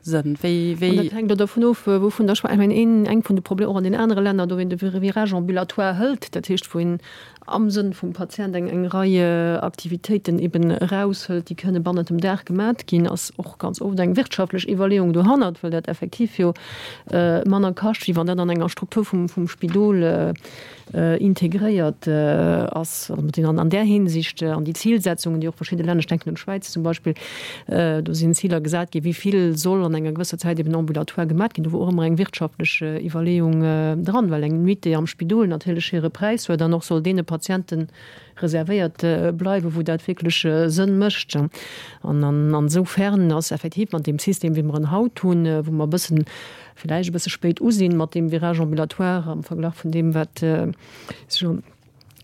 C: Sënn. Wéi, wéi.
D: An dat hänkt och dovun of, wouvun Der schwätzt. Ech mengen, een, eng vun de Problemer och an den anere Länner, do wou een de Virage ambulatoire hëlt, dat heescht wou een am Sënn vum Patient eng, eng Rei Aktivitéiten eben eraushëlt, déi kënne bannent dem Dag gemat ginn, ass och ganz oft eng wirtschaftlech Iwwerleeung dohannert, well dat effektiv jo manner kascht, wéi wann dat an enger Struktur vum, vum Spidol integréiert ass. Also mat deenen an där Hinsicht an déi Zilsetzungen, déi och verschidde Länner, ech denken un d'Schwäiz zum Beispill, do sinn Ziler gesat ginn, wéi vill soll an enger gewësser Zäit eben ambulatoire gemat ginn. Do wor och ëmmer eng wirtschaftlech Iwwerleeung dran, well eng Nuitée am Spidol natierlech hire Präis huet an och soll deene Patiente reservéiert bleiwen, wou dat wierklech Sënn mécht. An an esoufern ass effektiv mat deem System, wéi mer en haut hunn, wou mer e bëssen, villäicht e bësse spéit u sinn mat deem Virage ambulatoire am Verglach vun deem, wat sech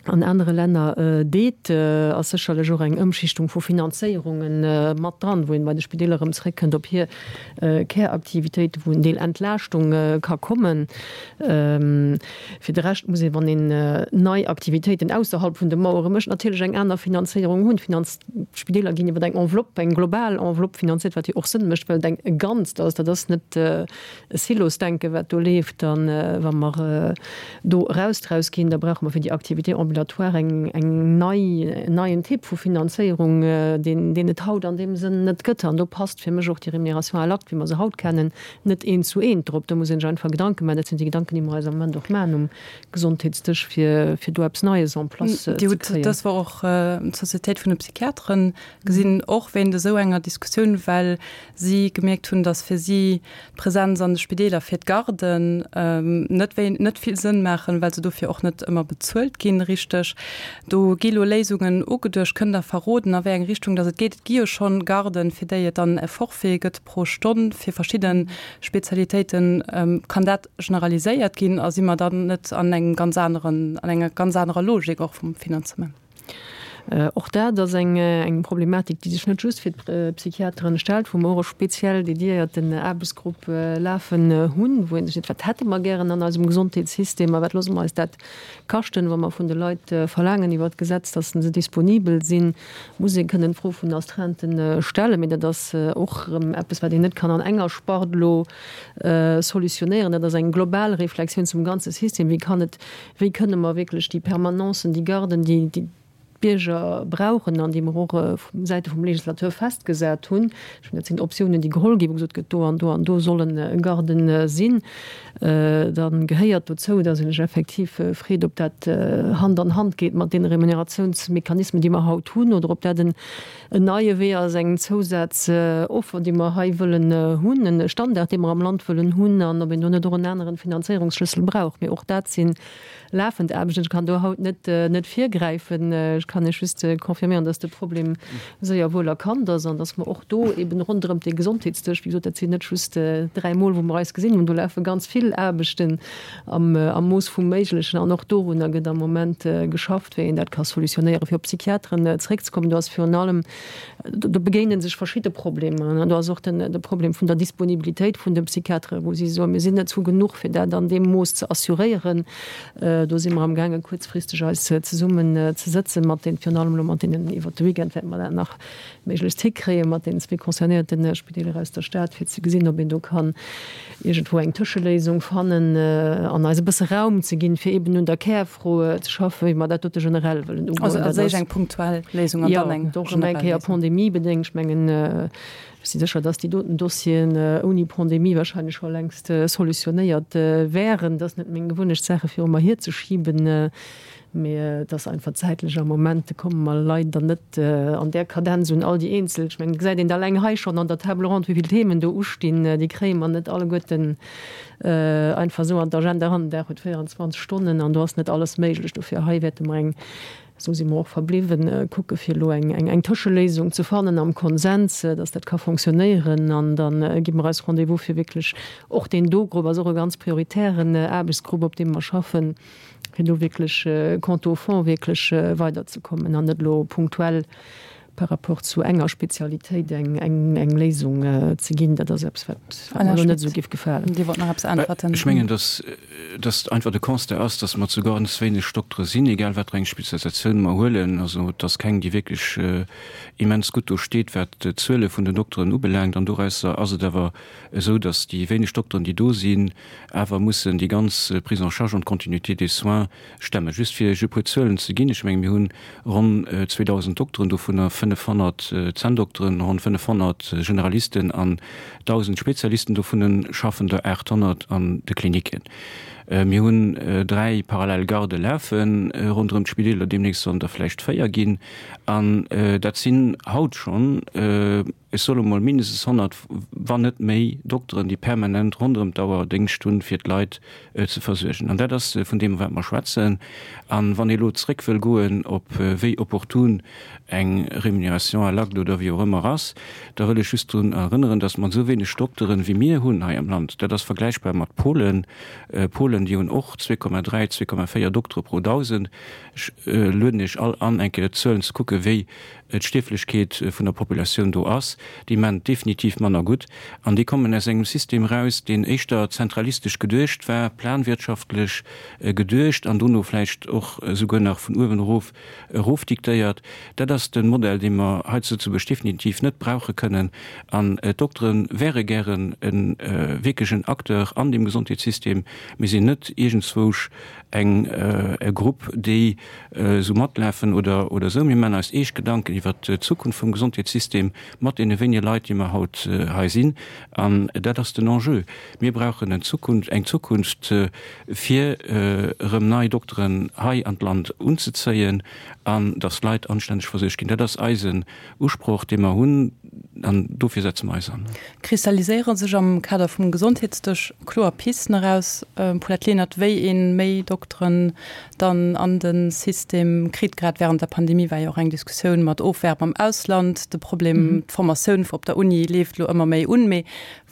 D: an anere Länner deet, ass sécherlech och eng Ëmschichtung vu Finanzéierunge mat dran, wou een bei de Spideeler erëm zréckkënnt op hir Käraktivitéiten, wou en Deel Entlaaschtung ka kommen. Fir de Rescht muss een, wann een nei Aktivitéiten ausserhalb vun de Mauere mécht, natierlech eng aner Finanzéierung hunn. D'Spideeler ginn iwwer eng Enveloppe, eng global Enveloppe finanziert, wat jo och Sënn mécht, well et eng e Ganzt ass. Dat ass net e Silosdenken, wat do leeft. A wa mer do eraus draus ginn, da brauche mer fir déi Activité ambulatoire. ambulatoire eng, eng nei, en neien Typ vu Finanzéierung, deen, deen et haut an deem Sënn net gëtt. An do passt fir mech och déi Rémunération à l'acte, wéi mer se haut kennen, net eent zu eent drop. Do muss ee sech einfach Gedanke maachen. Dat sinn déi Gedanken, déi mer eis am Moment och maachen um Gesondheetsdësch, fir, fir do eppes Neies en place ze
C: Dir hutt
D: kréien.
C: dës Woch och d'Societéit vun de Psychiateren gesinn, och wéint esou enger Diskussioun, well si gemierkt hunn, datt fir si d'Presenz an de Spideeler fir d'Garden net wéi net vill Sënn maachen, well se dofir och net ëmmer bezuelt ginn richteg. Do gi lo Léisungen ugeduecht. Kënnt Der verroden, a wéi eng Richtung datt et geet? Et gi jo schonn Garden, fir déi et dann e Forfait gëtt pro Stonn fir verschidde Spezialitéiten. Kann dat generaliséiert ginn a si mer dann net an engem ganz aneren, an enger ganz anerer Logik och vum Finanzement?
D: Och dat ass eng Problematik, déi sech net just fir d'Psychiateren stellt, wou mer och e speziell dediéierten Aarbechtsgrupp lafen hunn, wou ee sech seet, Wat hätte mer gären an eisem Gesondheetssystem a wat loosse mer eis dat kaschten, wa mer vun de Leit verlaangen iwwert d'Gesetz, dass se disponibel sinn, muss ee kënnen d'Fro vun den Astreinten stellen. Mee dat ass och erëm eppes, wat een net kann an enger Spart elo solutionéieren. Dat ass eng global Reflexioun zum ganze System. Wéi kann et Wéi kënne mer wierklech déi Permanencen, déi Garden, déi d'Bierger brauchen an déi mer och vu Säite vum Législateur festgesat hunn, ech mengen, dat sinn Optiounen, déi geholl ginn, wou gesot gëtt, do an do an do sollen Garden sinn, da gehéiert dozou, dass ee sech effektiv freet, ob dat Hand an Hand geet mat deene Remuneratiounsmechanismen, déi mer haut hunn, oder ob dat en neie Wee ass, eng Zousazoffer, déi mer hei wëllen hunn, e Standard, dee mer am Land wëllen hunn, an ob een do net och en aneren Finanzéierungsschlëssel brauch. Mee och dat si lafend Aarbechten. Ech kann do haut net net virgräifen. Ech kann Iech just confirméieren, dass de Problem séier wuel erkannt ass an dass mer och do eben ronderëm dee Gesondheetsdësch, wéi gesot, dat sinn net just dräimol, wou mer eis gesinn hunn, do lafe ganz vill Aarbechten am Mooss vum Méiglechen an och dorunner gëtt am Moment geschafft, wéi een dat ka solutionéieren. Fir op d'Psychiateren zeréckzekommen, do ass virun allem, do begéine sech verschidde Problemer. Do ass och den de Problem vun der Disponibilitéit vun de Psychiateren, wou si soen, mir sinn net zu genuch, fir dat an deem Mooss ze assuréieren. Do si mer amgaangen, kuerzfristeg eis zesummen ze sëtzen mat den, virun allem elo mat deenen, iwwert de Weekend wäerte mer dat nach méiglechst hikréien, mat deenen zwee concernéierte Spideeler aus der Stad, fir ze gesinn, ob een do kann iergendwou eng Tëscheléisung fannen an eis e bësse Raum ze ginn, fir eben un der Kärfro ze schaffen, wéi mer dat dote generell wëllen ugoen.
C: Also als éischt eng punktuell Léisung an dann eng
D: generell Léisung. Jo, och erëm eng Kéier pandemiebedéngt. Ech mengen, ech si sécher, dass déi doten Dossieren ouni Pandemie wahrscheinlech scho längst solutionéiert wären. Et ass net meng Gewunnecht, Saache viru mer hierzeschiben. Mee et ass einfach zäitlech am Moment komme mer leider net an där Kadenz un all déi eenzel. Ech mengen, et gesäit een et alleng hei schonn an der Table ronde, wéi vill Themen do ustinn. Déi kréie mer net alleguerten einfach esou an d'Agenda eran. Den Dag huet 24 Stonnen an do ass net alles méiglech. Dofir hei wäerte mer eng, esou si mer och verbliwwen, kucke fir elo eng Tëscheléisung ze fannen am Konsens, dass dat ka fonctionnéieren. An da gi mer eis Rendez-vous fir wierklech och deen do Grupp ass och e ganz prioritären Aarbechtsgrupp, op deem mer schaffen, fir do wierklech quant au fond wierklech weiderzekommen an net elo punktuell par rapport zu enger Spezialitéit eng Léisung ze ginn. Dat ass eppes, wat mer elo net esou géif gefalen.
C: Dir wollt nach eppes äntwerten.
F: Ech mengen, dass dass einfach de Constat ass, dass mer zu ganz wéineg Doktere sinn, egal wat fir eng Spezialisatioun mer huelen. Also et ass keng, déi wierklech immens gutt do steet, wat d'Zuele vun den Dokteren ubelaangt. An dorausser ass et awer esou, dass déi wéineg Dokteren, déi do sinn, awer mussen déi ganz Prise en charge an d'Continuité des soins stemmen. Just fir Iech e puer Zuelen ze ginn, ech menge mir hunn ronn 2.000 Dokteren, dovunner 500 Zänndokteren, ronn 500 Generalisten an 1.000 Spezialisten, dovunner schaffen der 800 an de Klinicken. Mir hunn dräi parallel Gardë lafe ronderëm d'Spideeler, deemnächst sollen der vläicht véier ginn. An dat sinn haut schonn, ech soe mol, mindestens 100, wann net méi, Dokteren, déi permanent ronderëm d'Auer Déngscht hunn, fir d'Leit ze versuergen. An dat ass vun deem, wat mer schwätzen. A wann ee elo zréck wëll goen op wéi opportun eng Rémunération à l'acte oder wéi och ëmmer ass, da wëll ech just drun erënneren, dass mat esou wéineg Dokteren, wéi mir hunn hei am Land, dat ass vergläichbar mat Polen, Polen, déi hunn och 2,3, 2,4 Doktere pro 1.000. Ech lueden Iech all an, eng Kéier d'Zuelen ze kucken, wéi d'Stierflechkeet vun der Populatioun do ass, déi maan et definitiv manner gutt. An déi kommen aus engem System eraus, deen éischter zentralistesch geduecht war, planwirtschaftlech geduecht an dono vläicht och esouguer nach vun uewen erof erofdiktéiert. Dat ass de Modell, dee mer hei zu Lëtzebuerg definitiv net brauche kënnen. An d'Doktere wäre gären e wierklech en Acteur an deem Gesondheetssystem. Mir sinn net. net iergendzwousch eng e Grupp, déi esou matlafen oder oder esou. Mir maachen eis eescht Gedanken iwwert d'Zukunft vum Gesondheetssystem mat deene wéinege Leit, déi mer haut hei sinn. An dat ass den Enjeu. Mir brauchen en Zukunft, eng Zukunft, fir erëm nei Dokteren hei an d'Land unzezéien an datt d'Leit anstänneg versuergt ginn. Dat ass eisen Usproch, dee mer hunn, an dofir setze mer eis an.
C: Kristalliséiere sech am Kader vum Gesondheetsdësch kloer Pisten eraus, Paulette Lenert, wéi ee méi Dokteren dann an de System kritt? Grad wärend der Pandemie war jo och eng Diskussioun mat Ofwärb am Ausland de Problem. D'Formatioun op der Uni leeft elo ëmmer méi un. Mee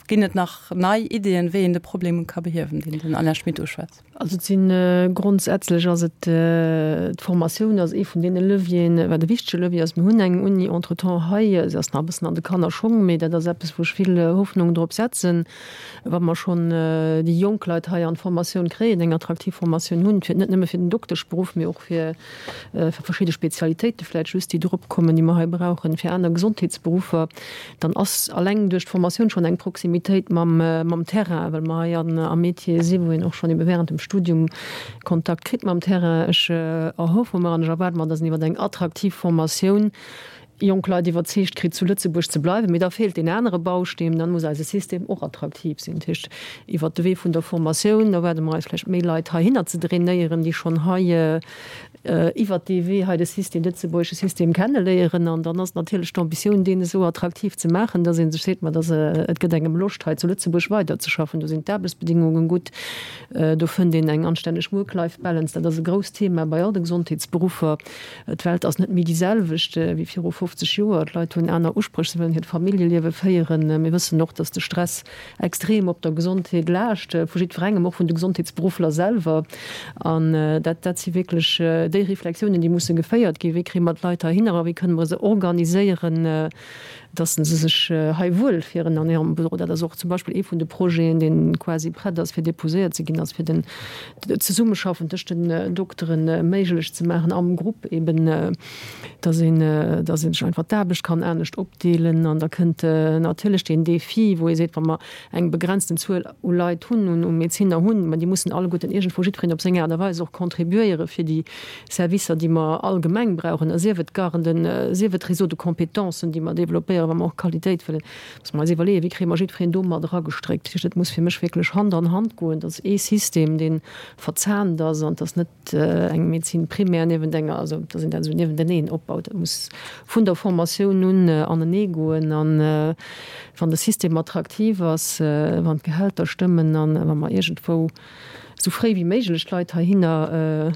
C: ginn et nach nei Iddien, wéi een de Problem ka behiewen, deen den Alain Schmit uschwätzt?
D: Also et sinn, grondsätzlech ass et d'Formatioun ass ee vun deene Levieren, wat e wichtege Levier ass. Mir hunn eng Uni entretemps hei, se ass nach e bëssen an de Kannerschong, mee dat ass eppes, wou ech vill Hoffnung drop setzen, wa mer schonn déi jonk Leit hei an d'Formatioun kréien, eng attraktiv Formatioun hunn, fir net nëmme fir den Dokteschberuff, mee och fir verschidde Spezialitéite vläicht just, déi drop kommen, déi mer hei brauchen, fir aner Gesondheetsberuffer. Dann ass alleng duerch d'Formatioun schonn eng Proximitéit mam Terrain, well mer hei am Métier si wou een och schonn ebe während dem Studium Kontakt kritt mam Terrain. Ech erhoffe mer an ech erwaarde mer, dass een iwwer eng attraktiv Formatioun jonk Leit iwwerzeegt kritt, zu Lëtzebuerg ze bleiwen. Mee da feelt deen anere Bausteen, dann muss eise System och attraktiv sinn. Dat heescht, iwwert de Wee vun der Formatioun erwaarde mer eis vläicht méi Leit heihinner ze drainéieren, déi schonn hei iwwert dee Wee hei de System, de lëtzebuergesche System kenneléieren. An dann ass natierlech d'Ambitioun, deen esou attraktiv ze maachen, dass ee sech seet, ma dass et gëtt engem Loscht, hei zu Lëtzebuerg weiderzeschaffen. Do sinn d'Aarbechtsbedingungen gutt, do fënnt een eng anstänneg Work-Life-Balance. Dat ass e grousst Thema bei all de Gesondheetsberuffer. D'Welt ass net méi déi selwecht wéi viru 50 Joer. D'Leit hunn aner Uspréch, se wëllen hiert Familljeliewe féieren. Mir wëssen och, dass de Stress extrem op der Gesondheet laascht, vu jiddwerengem, och vun de Gesondheetsberuffler selwer. An dat, dat si wierklech déi Reflexiounen, déi musse geféiert ginn. Wéi kréie mer d'Leit heihinner a wéi kënne mer se organiséieren, dass se sech hei wuelfieren an hirem Büro. Dat ass och zum Beispill ee vun de Projeten, dee quasi prett ass, fir déposéiert ze ginn, ass fir den d'Zesummeschaffen tëscht den Doktere méiglech ze maachen am Grupp eben, dass een, dass ee sech einfach d'Aarbecht kann anescht opdeelen. An da kënnt natierlech deen Défi, wou ee seet, wa mer eng begrenzten Zuel u Leit hunn, u Medezinner hunn, mä déi mussen alleguerten iergendwou jiddwereen op seng Aart a Weis och contribuéiere fir déi Servicer, déi mer allgemeng brauchen, a sief et d'Garden, sief et d'Réseaux de compétences, déi mer développéieren, wa mer och Qualitéit wëllen, muss mer eis iwwerleeën, wéi kréie mer jiddwereen do mat eragestréckt. Dat heescht, et muss fir mech wierklech Hand an Hand goen, dass ee System, dee verzahnt ass an dass net eng Médecine primaire niewent enger, also dass een dat esou niewenteneen opbaut. Dat muss vun der Formatioun un anenee goen. An wann de System attraktiv ass, wann d'Gehälter stëmmen an wa mer iergendwou esou fréi wéi méiglech d'Leit heihinner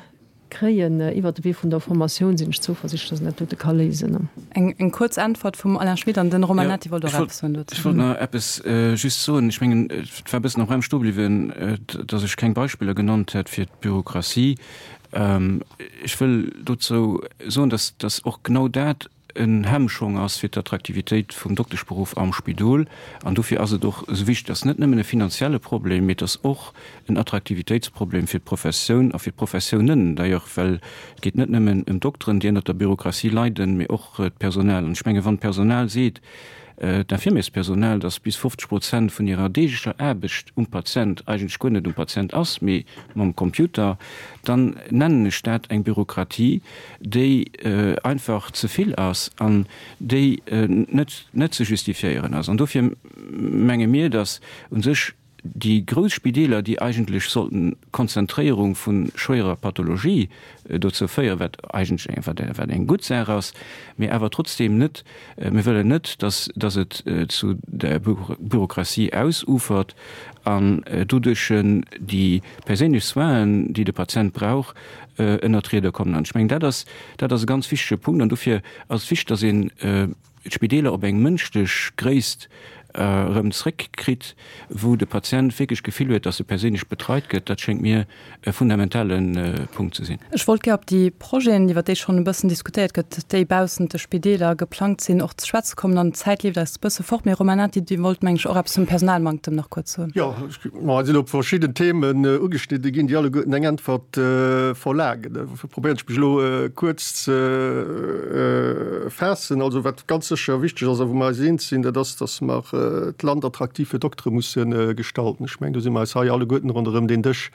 D: kréien iwwert de Wee vun der Formatioun, sinn ech zouversichtlech, dass een dat dote ka léisen.
C: Eng kuerz Äntwert vum Alain Schmit an den Romain Nati wollt och eppes soen
F: dozou. Ech wollt nach eppes just soen. Ech mengen, et war e bëssen am Raum stoe bliwwen, datt ech keng Beispiller genannt hätt fir d'Bürokratie. Ech wëll dozou soen, datt datt och genau dat en Hemmschong ass fir d'Attraktivitéit vum Dokteschberuff am Spidol. An dofir ass et och esou wichteg, et ass net nëmmen e finanzielle Problem, mee et ass och en Attraktivitéitsproblem fir d'Professioun a fir d'Professiounen d'ailleurs, well et geet net nëmmen ëm d'Dokteren, déi ënnert der Bürokratie leiden, mee och d'Personal. An ech menge wann d'Personal seet, d'Infirmierspersonal, dass bis 50 Prozent vun hirer deeglecher Aarbecht um Patient eigentlech guer net um Patient ass, mee mam Computer, dann nennen ech dat eng Bürokratie, déi einfach ze vill ass an déi net net ze justifiéieren ass. An dofir menge mir, dass u sech déi grouss Spideeler, déi eigentlech sollten d'Konzentréierung vu schwéierer Pathologie dozou féieren, wat eigentlech eng, wat, wat eng gutt Saach ass, mee awer trotzdeem net, mir wëllen net, dass, dass et zu der Bürokratie ausufert an doduerch déi perséinlech Soinen, déi de Patient brauch, ënnert d'Rieder kommen. An ech mengen, dat ass, dat ass e ganz wichtege Punkt. An dofir ass et wichteg, dass een d'Spideeler op eng mënschlech Gréisst erëm zréckkritt, wou de Patient wierklech d'Gefill huet, dass e perséinlech betreit gëtt. Dat schéngt mir e fundamentale Punkt ze sinn.
C: Ech wollt gär op déi Projeten, iwwer déi schonn e bëssen diskutéiert gëtt, déi baussent de Spideeler geplangt sinn, och ze schwätze kommen. An d'Zäit leeft eis e bësse fort. Mee Romain Nati, Dir wollt, meng ech, och eppes zum Personalmanktem nach kuerz soen.
E: Jo, Ma et sinn elo verschidden Themen ugeschnidde ginn, déi alleguerten eng Äntwert verlaangen. Dofir probéieren ech mech elo kuerz ze faassen. Also wat ganz sécher wichteg ass a wou mer eis eens sinn, dat ass, datt mer. d'Land attraktiv fir Doktere musse gestalten. Ech mengen, do si mer eis hei alleguerten ronderëm deen Dësch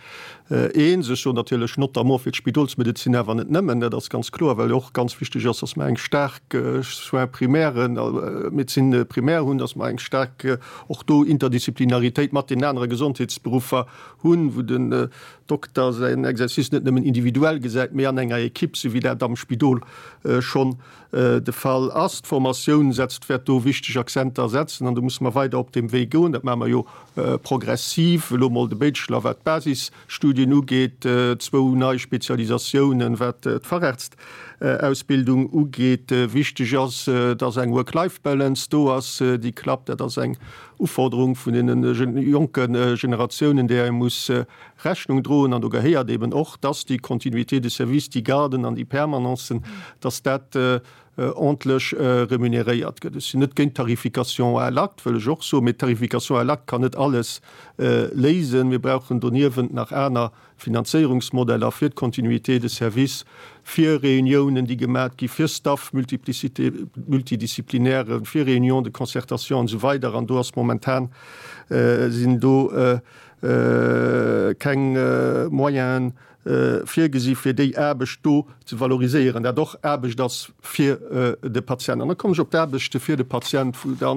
E: eens. Ech soen natierlech notamment fir d'Spidolsmedezin, awer net nëmmen, dat ass ganz kloer, well jo och ganz wichteg ass, dass mer eng staark Soins primaires, Médecine primaire hunn, dass mer eng staark och do Interdisziplinaritéit mat deenen anere Gesondheetsberuffer hunn, wou den Dokter säin Exercice net nëmmen individuell gesäit, mee an enger Equipe, sou wéi dat am Spidol schonn de Fall ass. D'Formatioun setzt, wäert do wichteg Akzenter setzen an do musse mer weider op deem Wee goen. Dat maache mer jo progressiv, elo mol de Bachelor wat d'Basisstudien ugeet, zwou nei Spezialisatiounen wat d'Fachärztausbildung ugeet. Wichteg ass, dass eng Work-Life-Balance do ass, déi klappt. Dat ass eng Uforderung vun deene jonke Generatiounen, där ee muss Rechnung droen. An do gehéiert eben och, dass déi Continuité de service, déi Garden an déi Permanencen, dass dat ordntlech remuneréiert gëtt. Ech sinn net géint d'Tarification à l'acte, wëll ech och soen, mee d'Tarification à l'acte kann net alles léisen. Mir brauchen doniewent nach aner Finanzéierungsmodeller fir d'Continuité de service, fir Reuniounen, déi gemat gi fir Staff multiplicité, multidisciplinaire, fir Réunions de concertation an esou weider. An do ass momentan, sinn do keng Moyenen virgesi fir déi Aarbecht do ze valoriséieren, dat och Aarbecht ass fir de Patient. An da kommen ech op d'Aarbechte fir de Patient, wou da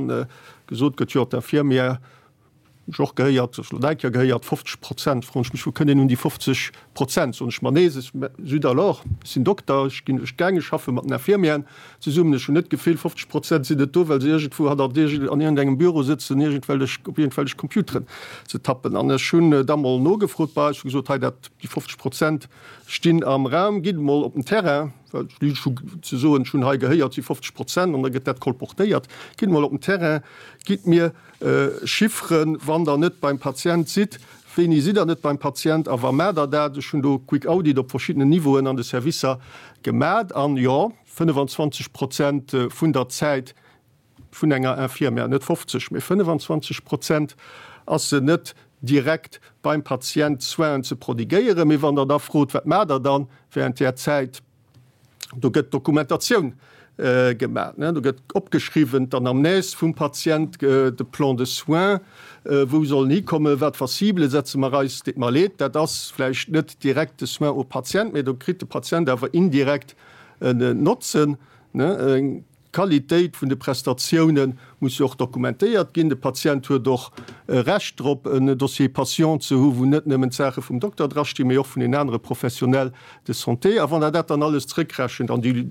E: gesot gëtt, jo, d'Infirmière, hunn ech och gehéiert, ech elo eng Kéier gehéiert, 50 Prozent. Froen ech mech, wou kënnt een un déi 50 Prozent? Soen ech mer, nee, zut alors, ech sinn Dokter, ech ginn duerch d'Gäng, ech schaffe mat den Infirmièren zesummen, ech hunn net d'Gefill, 50 Prozent sinn net do, well se iergendwou hannert iergend, an iergendengem Büro sëtzen, iergendwellech, op iergendwellech Computeren ze tappen. An ech hunn da mol nogefrot bei eis, hu gesot, hei dat, déi 50 Prozent stinn am Raum, gitt emol op den Terrain, well ech hu ze soen, ech hunn hei gehéiert, si 50 Prozent, an da gëtt dat kolportéiert, gitt emol op den Terrain, gitt mir Chifferen, wann Der net beim Patient sidd, wéini sidd Der net beim Patient a wa maacht Der dat? Ech hunn do Quick Audit op verschiddenen Niveauen an de Servicer gemat an, jo, 25 Prozent vun der Zäit vun enger Infirmière, net 50, mee 25 Prozent, ass se net direkt beim Patient Soinen ze prodigéieren. Mee wann Der da frot, Wat maacht Der dann während där Zäit? Do gëtt Dokumentatioun gemaach, do gëtt opgeschriwwen d'Anamnèse vum Patient, de Plan de soins, wou soll en hikommen, wat fir Ciblë setze mer eis. Deet mer leed, dat ass vläicht net direkt de Soin au patient, mee do kritt de Patient awer indirekt en Notzen. D'Qualitéit vun de Prestatioune muss jo och dokumentéiert ginn. De Patient huet och e Recht drop, en Dossier patient ze hu wou net nëmmen d'Saache vum Dokter drastinn, mee och vun den anere Professionnels de santé. A wann Der dat dann alles zrëckrechent, an déi,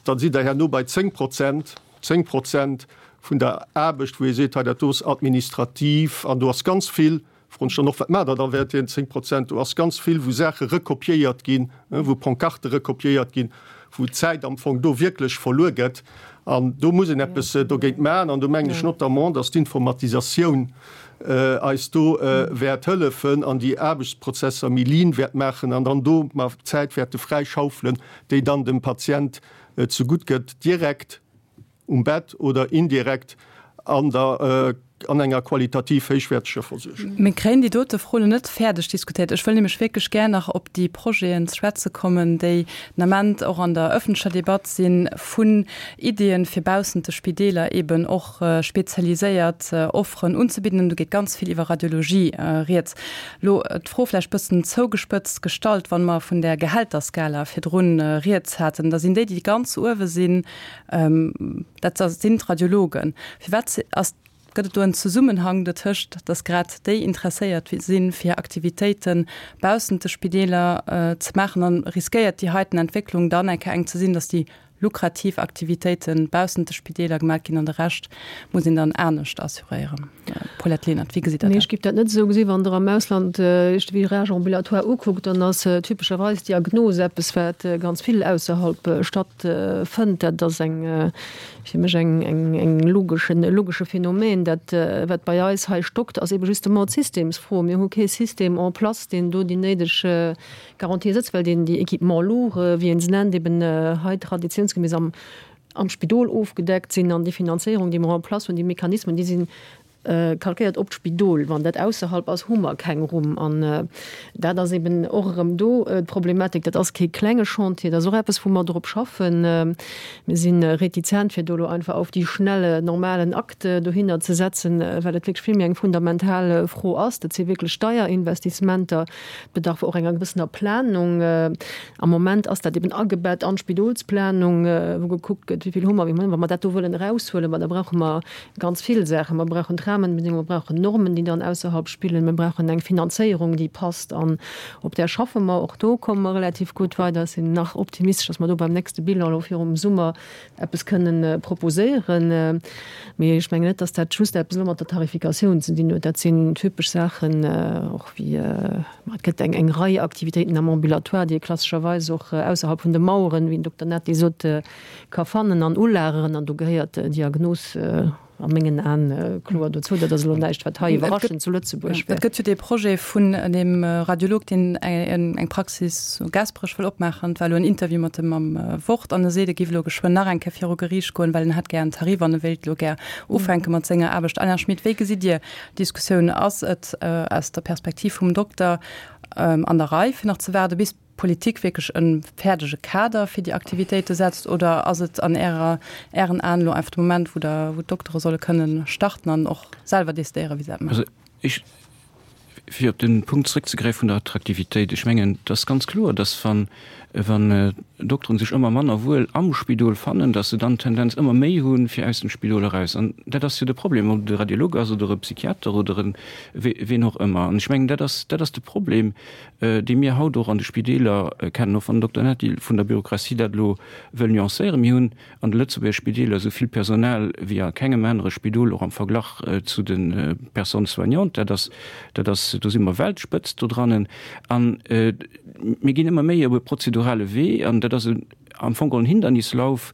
E: da sidd Der herno bei 10 Prozent, 10 Prozent vun der Aarbecht, wou ee seet, hei dat do ass administrativ an do ass ganz vill Froen ech dann och, wat maacht Der da während deenen 10 Prozent? Do ass ganz vill, wou Saache rekopiéiert ginn, wou Pancarte rekopiéiert ginn, wou Zäit am Fong do wierklech verluer gëtt. An do muss een eppes dogéint maachen. An do mengen ech notamment, dass d'Informatisatioun eis do wäert hëllefen an déi Aarbechtsprozesser méi lean wäert maachen an dann do mer Zäit wäerte fräischaufelen, déi dann dem Patient zegutt gëtt, direkt. um Bett oder indirekt an der an enger qualitativ héichwäerteger Versuergung.
C: Mir kréien déi dote Fro elo net fäerdeg diskutéiert. Ech wëll nämlech wierklech gär nach op déi Projeten ze schwätze kommen, déi den Ament och an der öffentlecher Debatt sinn, vun Iddien, fir baussent de Spideeler eben och spezialiséiert Offeren unzebidden. An do geet ganz vill iwwer Radiologie rieds. Elo d'Fro vläicht bëssen zougespëtzt gestallt, Wa mer vun där Gehälterskala virdrun rieds haten, da sinn déi, déi ganz uewe sinn, Dat sinn d'Radiologen. Firwat ass, gëtt et do en Zesummenhang dotëscht, datt grad déi interesséiert sinn, fir Aktivitéite baussent de Spideeler ze maachen? An riskéiert déi heiten Entwécklung dann eng Kéier eng ze sinn, datt déi lukrativ Aktivitéite baussent de Spideeler gemaach ginn an de Rescht muss een dann anescht assuréieren? Paulette Lenert, wéi gesitt Der
D: dat? Nee, ech géif dat net esou gesinn. Wann Der am Ausland Iech de Virage ambulatoire ukuckt, dann ass typescherweis d'Diagnos eppes, wat ganz vill ausserhalb stattfënnt. Dat ass eng, fir mech eng, eng, eng logeschen, e logesche Phänomen. Dat, wat bei eis hei stockt, ass ebe justement d'Systemsfro. Mir hu kee System en place, deen do déi néideg Garantie sëtzt, well deen déi Équipements lourds, wéi ee se nennt, eben hei traditionsgemäss am, am Spidol ofgedeckt sinn. An déi Finanzéierung, déi mer en place hunn, déi Mechanismen, déi sinn. Kalkéiert op d'Spidol. Wann dat ausserhalb ass, hu mer keng Rumm. An dat ass eben och erëm do d'Problematik. Dat ass kee klenge Chantier, dat ass och eppes, wou mer drop schaffen. Mir si retizent, fir do elo einfach auf die Schnelle normalen Akt dohinner ze setzen, well et wierklech vill méi eng fundamental Fro ass. Dat si wierklech deier Investissementer. Et bedarf och enger gewëssener Planung. Am Moment ass dat eben agebett an d'Spidolsplanung, wou gekuckt gëtt, wéi vill hu mer, wéi mer. Wa mer dat do wëllen eraushuelen, ma da brauche mer Ganz vill Saachen. Mer brauchen d'Rahmenbedingungen, mer brauchen Normen, déi dann ausserhalb spillen, mer brauchen eng Finanzéierung, déi passt. An op där schaffe mer. Och do komme mer relativ gutt weider. Ech sinn nach optimistesch, dass mer do beim nächste Bilan elo virum Summer eppes kënnen proposéieren. Mee ech mengen net, dass dat just eppes elo mat der Tarifikatioun ze dinn huet. Dat sinn typesch Saachen, och wéi, ma et gëtt eng eng Rei Aktivitéiten am Ambulatoire, déi ee klassescherweis och ausserhalb vun de Maueren, wéi den Dokter Natti sot, ka fannen an ulageren, an do gehéiert d'Diagnos a mengen Aen kloer dozou. Dat ass elo näischt, wat hei iwwerraschend zu Lëtzebuerg
C: wär. Et gëtt jo dee Projet vun deem Radiolog, deen eng Praxis zu Gaasperech wëll opmaachen. Et war elo en Interview mat em am Wort an e seet, e géif elo geschwënn nach eng Kéier viru Geriicht goen, well en hätt gär en Tarif an e wéilt elo gär ufänke mat senger Aarbecht. Alain Schmit, wéi gesitt Dir d'Diskussioun? Ass et aus der Perspektiv vum Dokter an der Rei, fir nach ze waarde bis d'Politik wierklech e fäerdege Kader fir déi Aktivitéite setzt oder ass et an Ärer, Ären Aen elo einfach de Moment, wou der, wou d'Doktere solle kënnen starten an och selwer decidéieren, wéi se dat
F: maachen? Also ech, fir op de Punkt zrëckzegräifen vun der Attraktivitéit, ech mengen, et ass ganz kloer, dass wann, wann d'Dokteren sech ëmmer manner wuel am Spidol fannen, dass se dann d'Tendenz ëmmer méi hunn, fir aus dem Spidol eraus. An dat ass jo de Problem, ob et e Radiolog ass oder e Psychiater oder e ween och ëmmer. An ech mengen, dat ass, dat ass de Problem, déi mir haut och an de Spideeler kennen, och wann den Dokter Nati vun der Bürokratie dat elo wëll nuancéieren. Mir hunn an de Lëtzebuerger Spideeler esou vill Personal wéi a kengem anere Spidol, och am Verglach zu de Personnes soignantes. Dat ass, dat ass, do si mer Weltspëtzt dodrannen. A mir ginn ëmmer méi op e prozedurale Wee, an dat ass e am Fong geholl en Hindernislauf,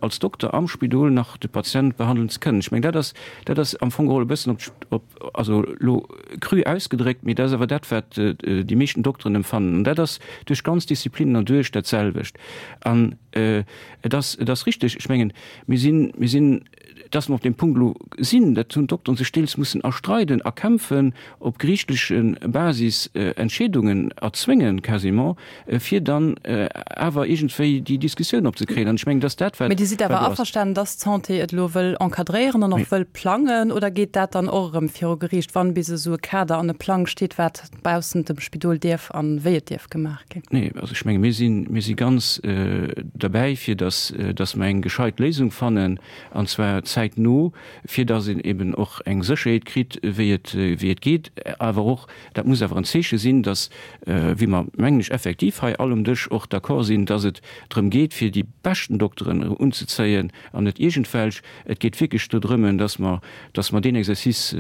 F: als Dokter am Spidol nach de Patient behandelen ze kënnen. Ech mengen, dat ass, dat ass am Fong geholl e bëssen op, op, also elo cru ausgedréckt, mee dat ass awer dat, wat déi meeschten Dokteren emfannen. An dat ass duerch ganz Disziplinen erduerch dat selwecht. An et ass, et ass richtig, ech mengen, mir sinn, mir sinn, dass mer op deem Punkt elo sinn, dat hunn d'Dokteren sech deels mussen erstreiden, erkämpfen, op geriichtleche Basis Entscheedungen erzwéngen quasiment, fir dann awer iergendwéi déi Diskussioun opzekréien. An ech mengen, dass dat, wat
C: Mee Dir sidd awer averstanen, dass d'Santé et elo wëll encadréieren an och wëll plangen, oder geet dat dann och erëm viru Geriicht, wann bis esou e Kader an e Plang steet, wat baussent dem Spidol dierf an wéi et dierf gemaach ginn?
F: Nee, also ech menge mir sinn, mir si ganz derbäi, fir dass, dass mer eng gescheit Léisung fannen, an zwar zäitno, fir dass een eben och eng Sécherheet kritt, wéi et, wéi et geet, awer och, dat muss awer en Zeeche sinn, dass, wéi mer, mengen ech, effektiv hei all um Dësch och d'accord sinn, dass et drëm geet, fir déi beschten Dokteren unzezéien an net iergendwelch. Et geet wierklech do drëmme, dass mer, dass mer deen Exercice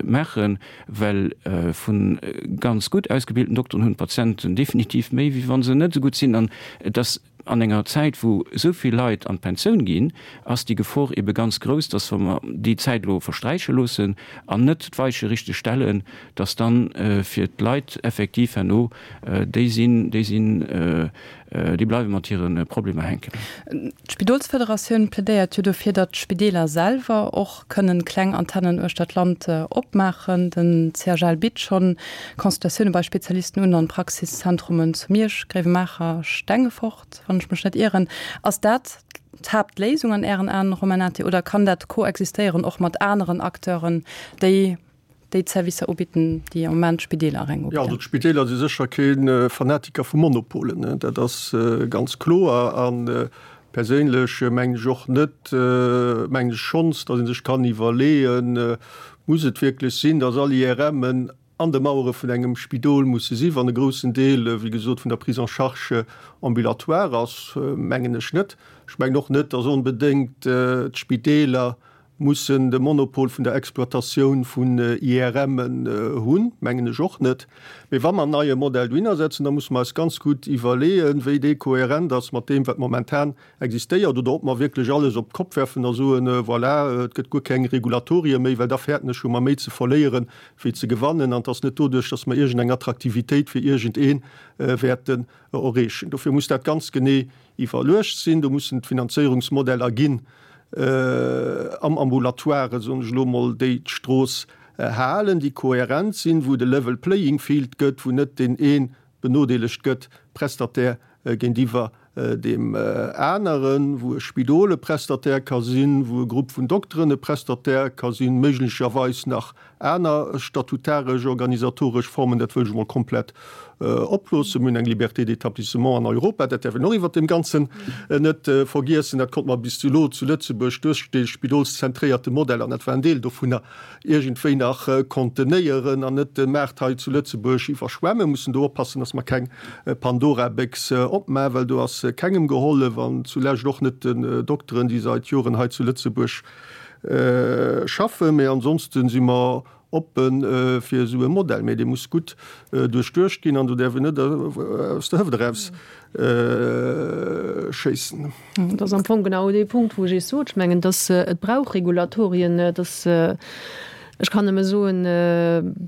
F: maachen, well vu ganz gutt ausgebilten Dokteren hunn d'Patienten definitiv méi, wéi wa se net esou gutt sinn. An et ass an enger Zäit, wou esou vill Leit an d'Pensioun ginn, ass déi Gefor ebe ganz grouss, dass, wa mer déi Zäit elo versträiche loossen an net d'Weiche richteg stellen, dass dann fir d'Leit effektiv herno déi sinn, déi sinn, déi bleiwe mat hire Problemer hänken.
C: D'Spidolsfederatioun plädéiert jo dofir, datt d'Spideeler selwer och kënnen kleng Antennen uechter d'Land opmaachen. Den CHL bitt schonn Consultatioune bei Spezialisten un an Praxiszentrumen zu Miersch, Gréiwemaacher, Stengefort, wann ech mech net ieren. Ass dat d'Haaptléisung an Ären Aen, Romain Nati, oder kann dat koexistéieren och mat aneren Acteuren, déi déi d'Servicer ubidden, déi am Moment d'Spideeler reng
E: ubidden? Jo, also d'Spideeler si sécher kee Fanatiker vu Monopolen, dat ass ganz kloer. A perséinlech mengen ech och net, mengen ech schonns, datt ee sech kann iwwerleeën, Muss et wierklech sinn, datt all IRMen an de Mauere vun engem Spidol musse sinn, wann e groussen Deel, wéi gesot, vun der Prise en charge ambulatoire ass? Mengen ech net. Ech mengen och net, datt onbedéngt d'Spideeler Mussen de Monopol vun der Exploitatioun vun IRMen hunn, mengen ech och net. Mee wa mer en neie Modell dohinner setzen, da musse mer eis ganz gutt iwwerleeën, wéi dee kohärent ass mat deem, wat momentan existéiert, oder ob mer wierklech alles op d'Kopp werfen a soen, Voilà, et gëtt guer keng Regulatorie méi, well da fäerten ech, hu mer méi ze verléieren, wéi ze gewannen. An et ass net doduerch, datt mer iergendeng Attraktivitéit fir iergendee wäerten erreechen. Dofir muss dat ganz genee iwwerluecht sinn. Do mussen d'Finanzéierungsmodeller ginn. Am Ambulatoire, soen ech elo emol, déi d'Strooss halen, déi kohärent sinn, wou et e level playing field gëtt, wou net deen ee benodeelegt gëtt, Prestataire géintiwwer deem aneren, wou e Spidol e Prestataire ka sinn, wou e Grupp vun Dokteren e Prestataire ka sinn, méiglecherweis nach aner statutaresch, organisatoresch Formen, dat wëll ech emol komplett oploossen. Mir hunn eng Liberté d'établissement an Europa, dat däerf een och iwwert deem Ganzen net vergiessen. Dat konnt mer bis elo zu Lëtzebuerg duerch dee spidolszentréierte Modell, an dat war en Deel dovunner, iergendwéi nach contenéieren an net de Maart hei zu Lëtzebuerg iwwerschwemmen. Mussen do oppassen, dass mer keng Pandora-Béchs opmachen, well do ass kengem gehollef an zulescht och net den Dokteren, déi seit Joren hei zu Lëtzebuerg schaffen. Mee ansonsten si mer oppe fir esou e Modell, mee dee muss gutt duerchduecht ginn an do däerf een net aus der Hëft eraus schéissen.
D: Dat ass am Fong genau dee Punkt, wou ech Iech sot, ech mengen, dass et brauch Regulatorien, dass, ech kann nëmme soen,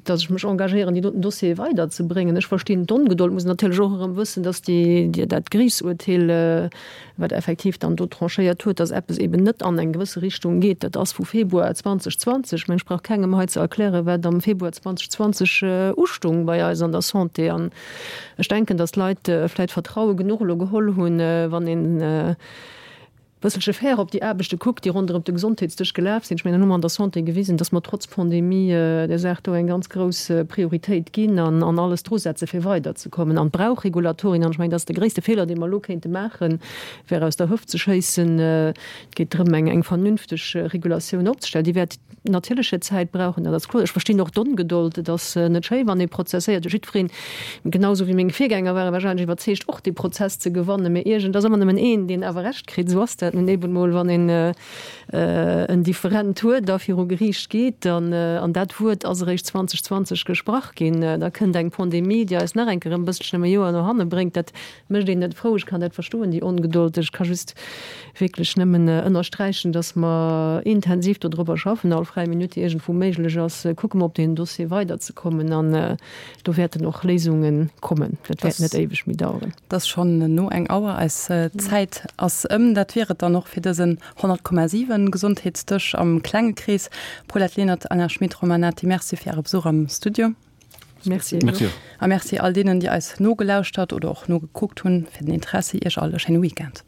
D: dass ech mech engagéieren, déi doten Dossiere weiderzebréngen. Ech verstinn d'Ongedold, muss natierlech och erëm wëssen, dass déi, dat Geriichtsurteel, wat effektiv dann do tranchéiert huet, dass eppes eben net an eng gewësse Richtung geet, dat ass vu Februar 2020. Ech mengen, ech brauch kengem hei ze erklären, wat am Februar 2020 ustung bei eis an der Santé. An Ech denken, datt d'Leit vläit Vertraue genuch elo geholl hunn, wann een e bësselche fair op déi Aarbechte kuckt, déi ronderëm de Gesondheetsdësch gelaf sinn. Ech mengen, dann hu mer an der Santé gewisen, datt mer trotz Pandemie där Saach do eng ganz grouss Prioritéit ginn an alles drusetze fir weiderzekommen. An et brauch Regulatorien. An ech mengen, dat ass de gréisste Feeler, dee mer elo kéinte maachen, wär aus der Hëft ze schéissen. Et geet drëm, eng vernünfteg Regulatioun opzestellen. Déi wäert natierlech hir Zäit brauchen, dat ass kloer. Ech verstinn och d'Ongedold. Et ass net schéi, wann ee prozesséiert. Jiddwereen, genau esou wéi meng Virgänger ware wahrscheinlech iwwerzeegt, och dee Prozess ze gewannen. Mee iergend ass ëmmer nëmmen een, deen awer Recht kritt. Esou ass dat nun eben emol, wann een en Different huet a viru Geriicht geet. An an dat Wuert ass eréischt 2020 gesprach ginn. Da kënnt eng Pandemie, déi eis nach eng Kéier e bësselchen ëm e Joer no hanne bréngt. Dat Mécht een net frou. Ech kann dat verstoen, déi Ongedold. Ech ka just wierklech nëmmen ënnersträichen, dass mer intensiv dodrobber schaffen, all fräi Minutt, déi iergendwou méiglech ass, kucke mer op deen Dossier weiderzekommen an do wäerten och Léisunge kommen. Dat wäert net éiweg méi daueren.
C: Et ass schonn no eng Auer, eis Zäit ass ëm. Dat wier et dann och fir dësen 100,7 Gesondheetsdësch am klenge Krees. Paulette Lenert, Alain Schmit, Romain Nati, Merci fir Äre Besuch am Studio.
D: Merci.
F: Merci.
C: A Merci all deenen, déi eis nogelauschtert oder och nogekuckt hunn, fir den Interessi. Iech all e schéine Weekend.